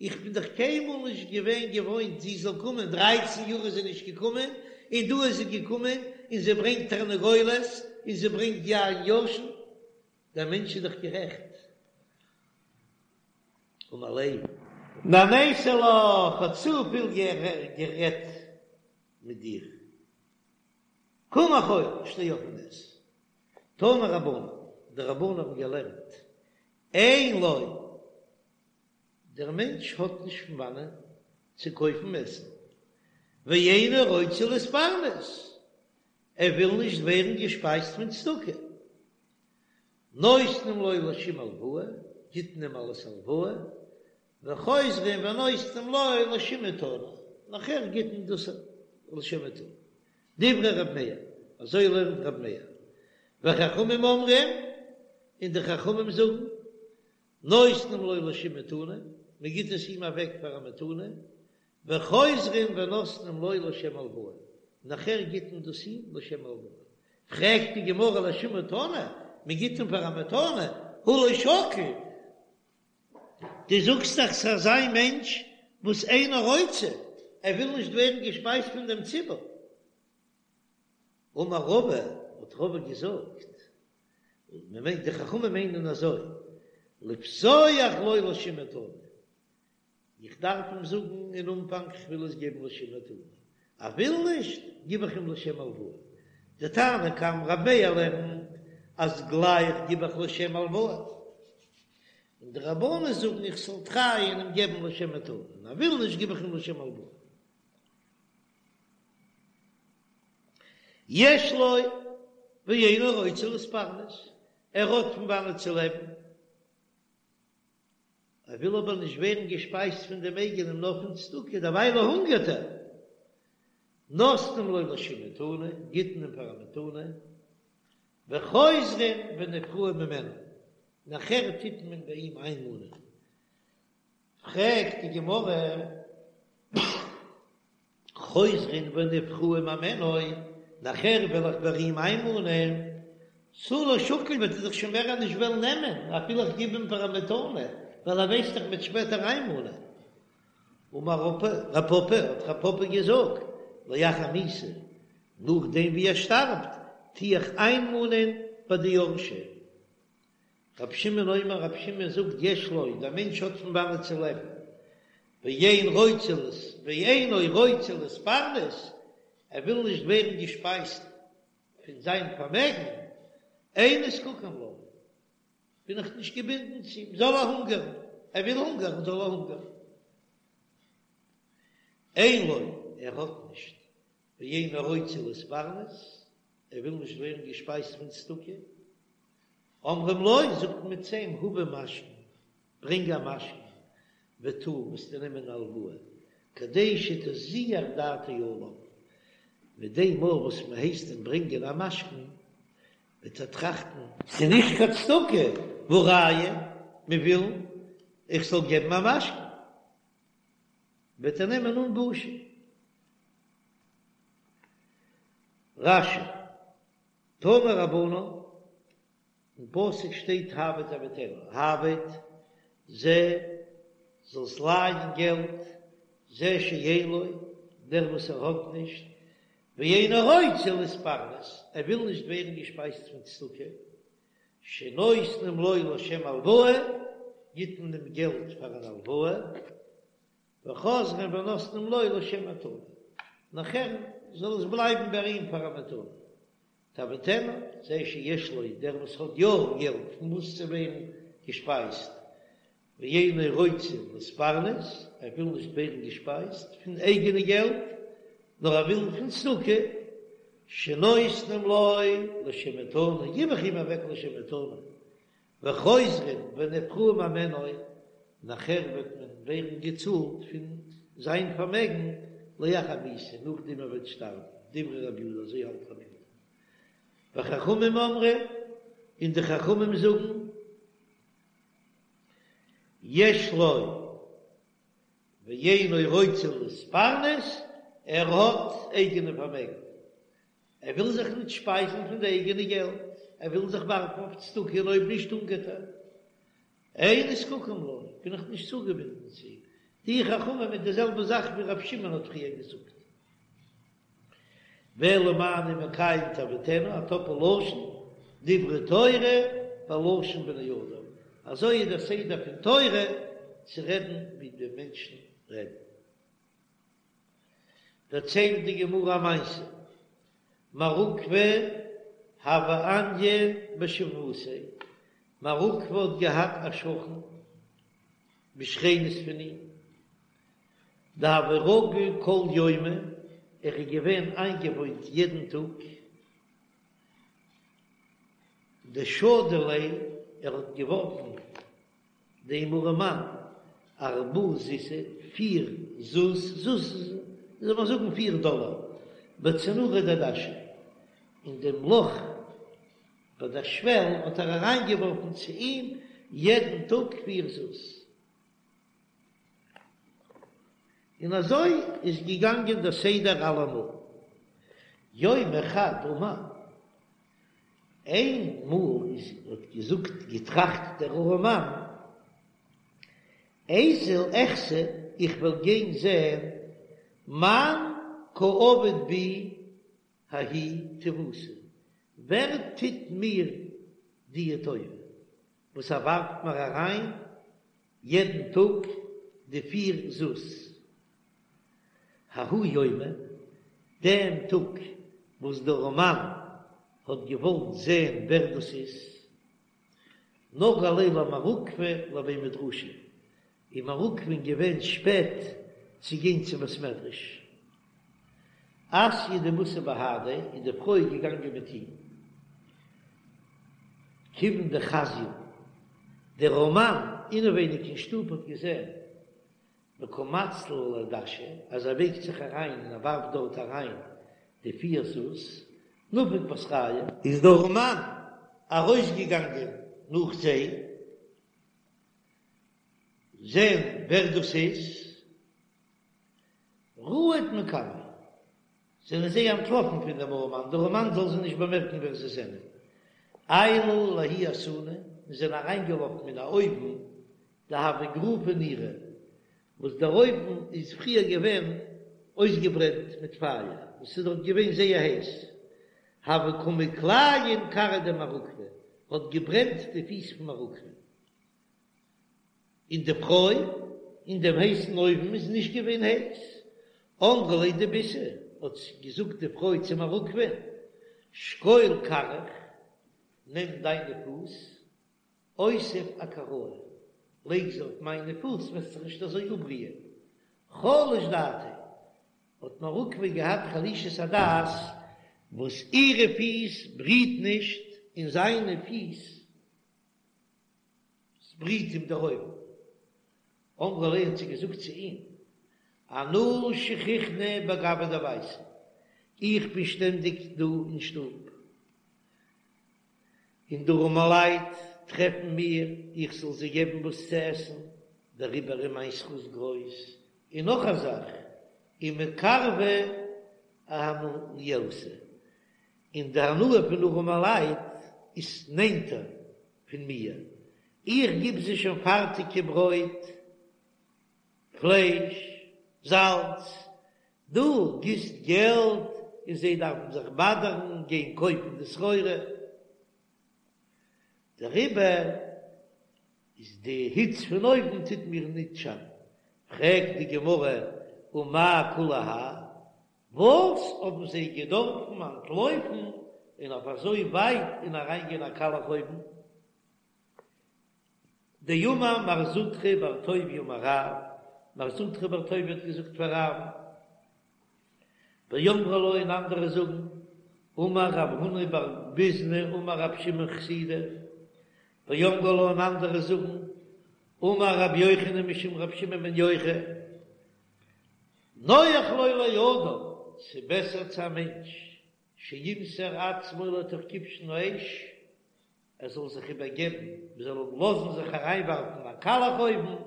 איך בין דאך קיינמאל נישט געווען געוואוינט זי זאל קומען, דרייצן יאר איז זי נישט געקומען, און דא איז זי געקומען, און זי ברענגט תרנגולת, און זי ברענגט יין ישן, דער מענטש איז דאך גערעכט. אמר ליה. נהניתי לך, כ'האב צופיל גערעדט מיט דיר. קום אכול, שטיי אויף און עס. תנו רבנן, די רבנן האבן געלערנט, אין לו, דער מענטש האט נישט פון וואנען צו קויפן עסן, ואינו רוצה להתפרנס, ער וויל נישט ווערן געשפייזט פון צדקה, נותנים לו לשם הלוואה, גיט מען אים אלס הלוואה, וחוזרים ונותנים לו לשם מתנה, נאכער גיט מען דאס לשם מתנה. דברי ר' מאיר, אזוי לערנט ר' מאיר. וחכמים אומרים, און די חכמים זאגן, נותנים לו לשם מתנה, מען גיט עס אים אוועק פאר א מתנה, וחוזרים ונותנים לו לשם הלוואה, נאכער גיט מען דאס אים לשם הלוואה. פרעגט די גמרא לשם מתנה, מען גיט אים פאר א מתנה, הא לא שקיל, דו זאגסט דאך ס'איז אזא מענטש וואס אינו רוצה, ער וויל נישט ווערן געשפייזט פון דעם ציבור. אמר רבא, האט רבא געזאגט, מען מיינט די חכמים מיינען אזוי, לפתוח לו לשם מתנה, איך דארף אים זאגן אין אנפאנג איך וויל עס געבן לשם מתנה, ער וויל נישט, גיב איך אים לשם הלוואה. די תנא קמא רב מאיר לערנט אז גלייך גיב איך לשם הלוואה, און די רבנן זאגן איך זאל טרייען אים געבן לשם מתנה, און ער וויל נישט גיב איך אים לשם הלוואה. יש לו ואינו רוצה להתפרנס, ער האט פון וואנעט צו לעבן, ער וויל אבער נישט ווערן געשפייזט פון דעם אייגענעם נאר פון צדקה, דערווייל הונגערט ער. נותנים לו לשם מתנה, גיט מען אים פאר א מתנה, וחוזרין ונפרעין ממנו, נאכער טוט מען ביי אים איינמאנען. פרעגט די גמרא, חוזרין ונפרעין ממנו, נאכער וועל איך ביי אים איינמאנען, תו לא שקיל וועט ער זיך שוין מער נישט וועלן נעמען, אפילו איך גיב אים פאר א מתנה, ווייל ער ווייסט דאך מ'וועט שפעטער איינמאנען. אמר רב פפא, האט רב פפא געזאגט, לאחר מיתה, נאכדעם ווי ער שטארבט, טו איך איינמאנען ביי די יורשים. רבי שמעון אומר, רבי שמעון זאגט יש לו, דער מענטש האט פון וואנעט צו לעבן, ואין רוצה לס ואינו רוצה להתפרנס, ער וויל נישט ווערן געשפייזט פון זיין פארמעגן, אין נזקקין לו, בין איך נישט געבינדן צו אים, זאל ער הונגערן, ער וויל הונגערן זאל ער הונגערן. אין לו, ער האט נישט, ואינו רוצה להתפרנס, ער וויל נישט ווערן געשפייזט פון צדקה, אומרים לו, זאגט מען צו אים, הבא משכון, ברענג א משכון, וטול, וועסטו נעמען א הלוואה, כדי שתזוח דעתו עליו, מיט דעם מאל וואס מען הייסט אים ברענגען א משכון, וועט ער טראכטן, ס'איז נישט קיין צדקה, והא ראיה, מען וויל איך זאל געבן א משכון, וועט ער נעמען אן בושה. רש"י, תנו רבנן, אין פסוק שטייט העבט תעביטנו, העבט זה זאלסט לייען געלט, זה שאין לו, דער וואס ער האט נישט, ואינו רוצה להתפרנס, ער וויל נישט ווערן געשפייזט פון צדקה, שנותנים לו לשם הלוואה, גיט מען אים געלט פאר אן הלוואה, וחוזרין ונותנים לו לשם מתנה, נאכער זאל עס בלייבן ביי אים פאר א מתנה. תעביטנו, זה שיש לו, דער וואס האט יא געלט פון וואס צו ווערן געשפייזט, ואינו רוצה להתפרנס, ער וויל נישט ווערן געשפייזט פון אייגענע געלט, נאר ער וויל פון צדקה, שנותנים לו לשם מתנה, גיב איך אים אוועק לשם מתנה, וחוזרין ונפרעין ממנו, נאכער וועט מען ווערן געצאלט פון זיין פארמעגן לאחר מיתה, נאכדעם ער וועט שטארבן, דברי רבי יהודה, אזוי האלט רבי יהודה. וחכמים אומרים, און די חכמים זאגן, יש לו ואינו רוצה להתפרנס, ער האט אייגענע פארמעגן, ער וויל זיך ניט שפייזן פון די אייגענע געלט, ער וויל זיך ווארפן אויף צדקה און אויב נישט הונגערט ער. אין נזקקין לו, בין איך נישט צוגעבינדן צו אים. די חכמים מיט די זעלבע זאך ווי רבי שמעון האט פריער געזאגט. ואלא מה אני מקיים תעביטנו, א טאפל לשון, דברי תורה בלשון בני אדם, אזוי איז דער סדר פון תורה צו רעדן ווי די מענטשן רעדן. דערציילט די גמרא א מעשה, מר עוקבא הוה עניא בשיבבותיה, מר עוקבא האט געהאט א שכן בשכנות פון אים, דהוה רגיל כל יומא, ער איז געווען איינגעוואוינט יעדן טאג, דשדי ליה, ער האט געווארפן דעם ארעמאן ארבעה זוזי, פיר זוז, זוז זאל מען זאגן פיר דאלער, בצנורא דדשא, אין דעם לאך ביי דער שוועל האט ער אריינגעווארפן צו אים יעדן טאג פיר זוז. און אזוי איז געגאנגען דער סדר אלעמאל. יומא חד אמר, איין מאל איז האט געזאגט געטראכט דער ארעמאן, איזיל אחזי איך וועל גיין זען מאן קא עביד בי. ההיא טיבותא, ווער טוט מיר דיע טובה וואס ער ווארפט מיר אריין יעדן טאג די פיר זוז? ההוא יומא, דעם טאג וואס דער ארעמאן האט געוואלט זען ווער דאס איז, נגהא ליה למר עוקבא לבי מדרשא, איז מר עוקבא'ן געווען שפעט צו גיין צום בית מדרש. אתיא דמתא בהדיה, איז די פרוי געגאנגען מיט אים. כיוון דחזיוה, דער ארעמאן אינעווייניג אין שטוב האט געזען דקא מצלי לדשא, אז ער בייגט זיך אריין און ער ווארפט דארט אריין די פיר זוז, נפק בתרייהו. איז דער ארעמאן ארויסגעגאנגען נאך זיי, זען ווער דאס איז, רהוט מקמיה, זענען זיי אנטלאפן פון דעם ארעמאן, דער ארעמאן זאל זיי נישט באמערקן ווער זיי זענען. עיילוה לההוא אתונא, און זענען אריינגעלאפן אין א אויוון, דהוה גריפא נירא, וואס דער אויוון איז פריער געווען אויסגעברענט מיט פייער, און ס'איז דארט געווען זייער הייס, הוה קא מכליין כרעיה דמר עוקבא, האט געברענט די פיס פון מר עוקבא. און די פרוי אין דעם הייסן אויוון איז נישט געווען הייס. אמרה ליה דביתהו, האט געזאגט די פרוי צו מר עוקבא'ן, שקול כרעיך, נעם דיינע פוס, אותיב אכרעאי, לייג זיי אויף מיינע פוס, וועסט זיך נישט אזוי אפבריען. חלש דעתיה, האט מר עוקבא געהאט חלישות הדעת, וואס אירע פיס בריט נישט און זיינע פיס בריט אים דער אויוון. אמרה ליה האט זי געזאגט צו אים, אנא שכיחנא בגויה דביתא, איך בין שטענדיג דא אין שטוב, און די ארעמעלייט טרעפן מיר איך זאל זיי געבן וואס צו עסן, דעריבער איז מיין זכות גרויס, און נאך א זאך, ומקרבא אהנייתא, און די הנאה פון ארעמעלייט איז נענטער פון מיר, איך גיב זיי שוין פארטיגע ברויט, פלייש, זאלץ, דו גיבסט געלט און זיי דארפן זיך באדערן גיין קויפן די סחורה, דעריבער איז די היץ פון אויוון טוט מיר ניט שאטן. פרעגט די גמרא, ומאי כולי האי, וואס האבן זיי געדארפן אנטלויפן און אויף אזוי ווייט און אריינגיין א קאלעך אויוון? דאמר מר זוטרא בר טוביה אמר רב, מר זוטרא בר טוביה האט געזאגט פאר רב, ואמרי לה און אנדערע זאגן, אמר רב הונא בר ביזנא אמר רב שמעון חסידא, ואמרי לה און אנדערע זאגן, אמר רבי יוחנן משום רבי שמעון בן יוחאי, נוח לו לאדם, ס'בעסער צו א מענטש, שימסור עצמו לתוך כבשן האש, ער זאל זיך איבערגעבן, מען זאל אים לאזן זיך אריינווארפן אין א קאלעך אויוון,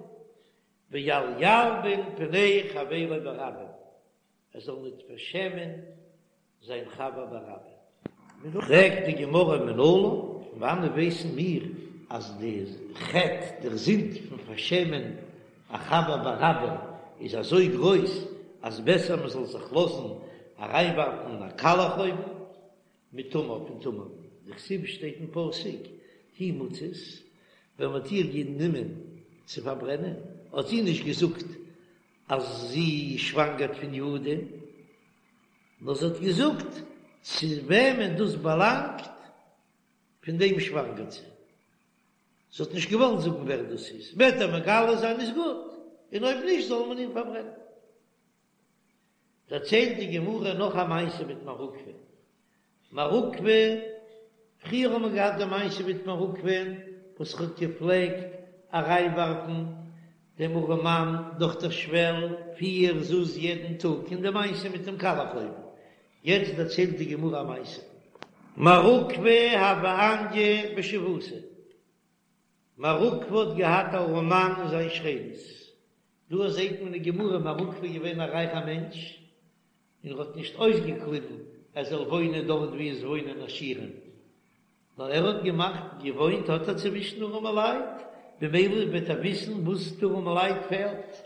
ואל ילבין פני חברו ברבים, ער זאל ניט פארשעמען זיין חבר ברבים. פרעגט די גמרא מנלן, פון וואנעט ווייסן מיר אז די חטא, דער זינד פון פארשעמען א חבר ברבים איז אזוי גרויס אז בעסער מען זאל זיך לאזן אריינווארפן אין א קאלעך אויוון? מתמר פון תמר, דכתיב שטייט אין פסוק, היא מוצאת, ווען מ'האט איר גענומען צו פארברענען, האט זי נישט געזאגט אז זי שוואנגערט פון יהודה, נאר זי האט געזאגט צו וועמען דאס באלאנגט, פון דעם שוואנגערט זי. זי האט נישט געוואלט זאגן ווער דאס איז, וועט ער מגלה זיין איז גוט, און אויב נישט זאל מען אים פארברענען. דערציילט די גמרא נאך א מעשה מיט מר עוקבא. מר עוקבא, פריער האט מען געהאט די מעשה מיט מר עוקבא וואס האט געפלעגט אריינווארפן דעם ארעמאן דורך דער שוועל פיר זוז יעדן טאג, און די מעשה מיט דעם קאלעך אויוון. יעצט דערציילט די גמרא א מעשה. מר עוקבא הוה עניא בשיבבותיה. מר עוקבא האט געהאט א ארעמאן אין זיין שכנות. דא זעט מען אין גמרא מר עוקבא איז געווען א רייכע מענטש, און ער האט נישט אויסגעקליבן ער זאל וואוינען דארט וואו עס וואוינען עשירים, נאר ער האט געמאכט, געוואוינט האט ער צווישן ארעמעלייט, במילא וועט ער וויסן וואס די ארעמעלייט פעלט,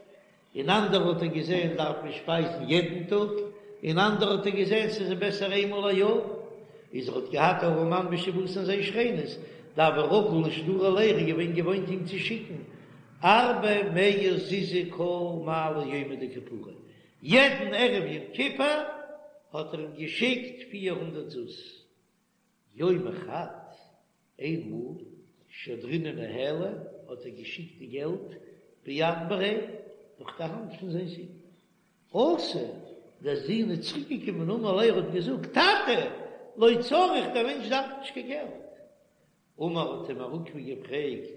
און אנדערע האט ער געזען דארף מען שפייזן יעדן טאג. און אנדערע האט ער געזען ס'איז אים בעסער איינמאל א יאר, איז ער האט געהאט א ארעמאן בשיבבותיה אין זיין שכנות, דהוה רגיל לשדורי ליה, ער איז געווען געוואוינט אים צו שיקן ארבע מאה זוזי כל מעלי יומא דכיפורי, יעדן ערב יום כיפור האט ער אים געשיקט 400 זוז. יומא חד, איינמאל, שדרינהו ניהליה, האט ער געשיקט די געלט ביד בריה, דורך די האנט פון זיין זון. אתא, דער זון איז צוריק געקומען אמר ליה, ער האט געזאגט, טאטע, לא צריך, דער מענטש דארף נישט קיין געלט. אמר האט אים מר עוקבא געפרעגט,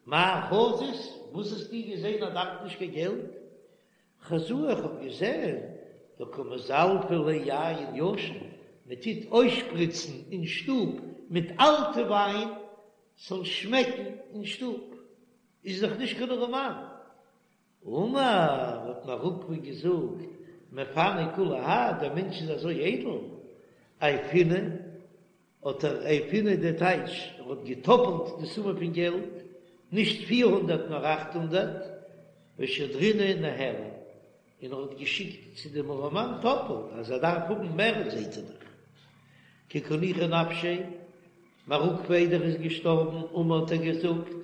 מאי חזית, וואס האסטו געזען אז ער דארף נישט קיין געלט? חזאי איך האב געזען דקא מזלפי ליה יין ישן, מען טוט אויסשפריצן אין שטוב מיט אלטע וויין ס'זאל שמעקן אין שטוב, איז דאך נישט קיין ארעמאן. אמר האט מר עוקבא געזאגט, מפני כולי האי, דער מענטש איז אזוי איידל, עייפינהו האט ער עייפינהו די טייטש, ער האט געטאפלט די סומע פון געלט, נישט 400 נאר 800, ושדרינהו ניהליה, און ער האט געשיקט צו דעם ארעמאן טאפלט, אז ער דארף האבן מער זעט ער דאך. כי קא ניחא נפשיה, מר עוקבא איידער ער איז געשטארבן, אמר האט ער געזאגט,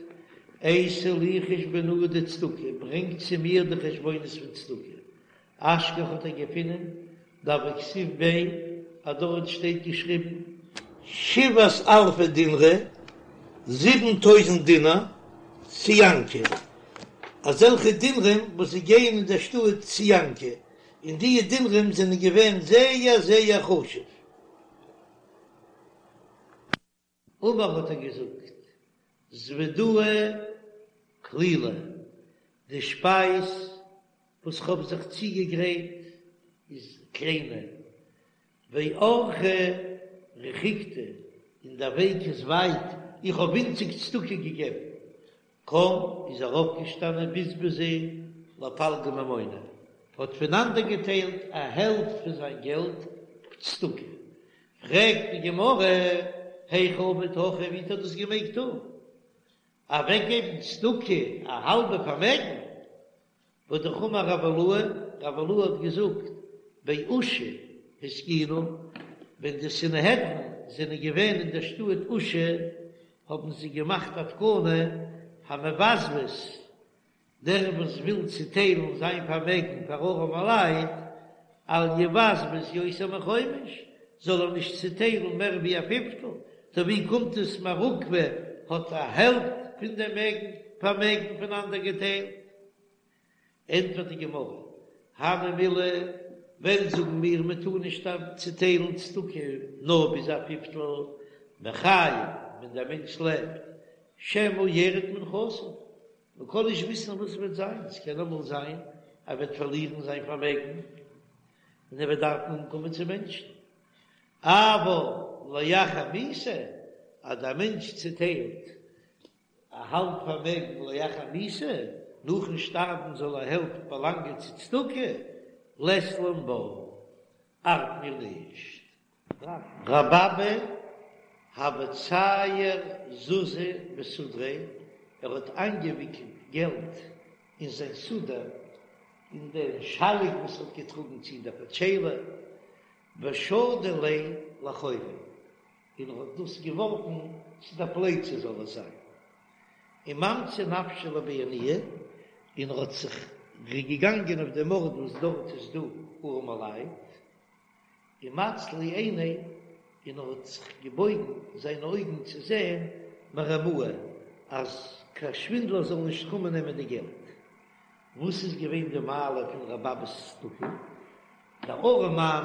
אייתו לי חושבנאי דצדקה, ברענגט צו מיר די חשבונות פון צדקה, אשכח האט ער געפונען דהוה כתיב ביה אז דארט שטייט געשריבן. שבעת אלפי דינרי, 7000 דינר, ציאנקי, אזעלכע דינרים וואס זיי גייען אין דער שטאט ציאנקי, און די דינרים זענען געווען זייער זייער חשוב. אמר האט ער געזאגט, זוודאי קלילא, די שפייז וואס כ'האב זיך צוגעגרייט איז קליינע, ואורחא רחיקתא, און דער וועג איז ווייט, איך האב ווינציג צדקה געגעבן. קם איז ער אויפגעשטאנען בזבזיה לפלגא ממוניה, האט פונאנדערגעטיילט א העלפט פון זיין געלט צדקה. פרעגט די גמרא, היכי עביד הכי, ווי האט ער דאס געמעגט טון? אוועקגעבן צדקה א האלבע פארמעגן? והא אמר רב אילעא, רב אילעא האט געזאגט, באושא התקינו, ווען די סנהדרין זענען געווען אין דער שטאט אושא, האבן זיי געמאכט א תקנה, המבזבז, דער וואס וויל צוטיילן זיין פארמעגן פאר ארעמע לייט, אל יבזבז יותר מחומש, זאל ער נישט צוטיילן מער ווי א פיפטל, טא ווי קומט עס מר עוקבא האט א העלפט פון דעם פארמעגן פונאנדערגעטיילט? ענטפערט די גמרא, הני מילי, ווען זאגן מיר מען טאר נישט צוטיילן צדקה נאר ביז א פיפטל, בחיי ווען דער מענטש לעבט, שמא ירד מנכסיו, מען קען נישט וויסן וואס וועט זיין, עס קען אמאל זיין ער וועט פארלירן זיין פארמעגן און ער וועט דארפן אנקומען צו מענטשן, אבל לאחר מיתה, אז דער מענטש צוטיילט א האלב פארמעגן לאחר מיתה, נאכן שטארבן זאל א העלפט באלאנגען צו צדקה, לית לן בה, ארט מיר נישט. רבי אבא הוה צייר זוזי בסודריה, ער האט איינגעוויקלט געלט אין זיין סודר, אין דעם שאליק וואס ער האט געטראגן צו אין דער פאטשיילע, ושדי ליה לאחוריה, און ער האט דאס געווארפן צו די פלייצע זאל עס זיין, וממצי נפשיה לבי עניי, און ער האט זיך געגאנגען אויף דעם ארט וואס דארט איז דא ארעמעלייט, ומצלי עיניה, און ער האט זיך געבויגן זיינע אויגן צו זען מרמאי, אז קיין שווינדלער זאל נישט קומען נעמען די געלט. וואס איז געווען די מעלה פון רבי אבא'ס צדקה? דער ארעמאן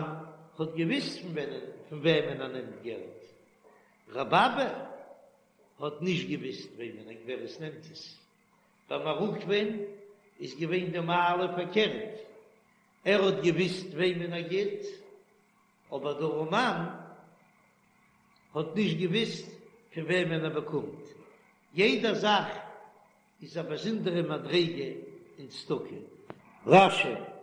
האט געוויסט פון וועמען ער נעמט געלט, רבי אבא האט נישט געוויסט וועמען ווער עס נעמט עס. ביי מר עוקבא'ן איז געווען די מעלה פארקערט, ער האט געוויסט וועמען ער גיט, אבער דער ארעמאן האט נישט געוויסט פון וועמען ער באקומט. יעדע זאך איז א באזונדערע מדריגה אין צדקה. רש"י.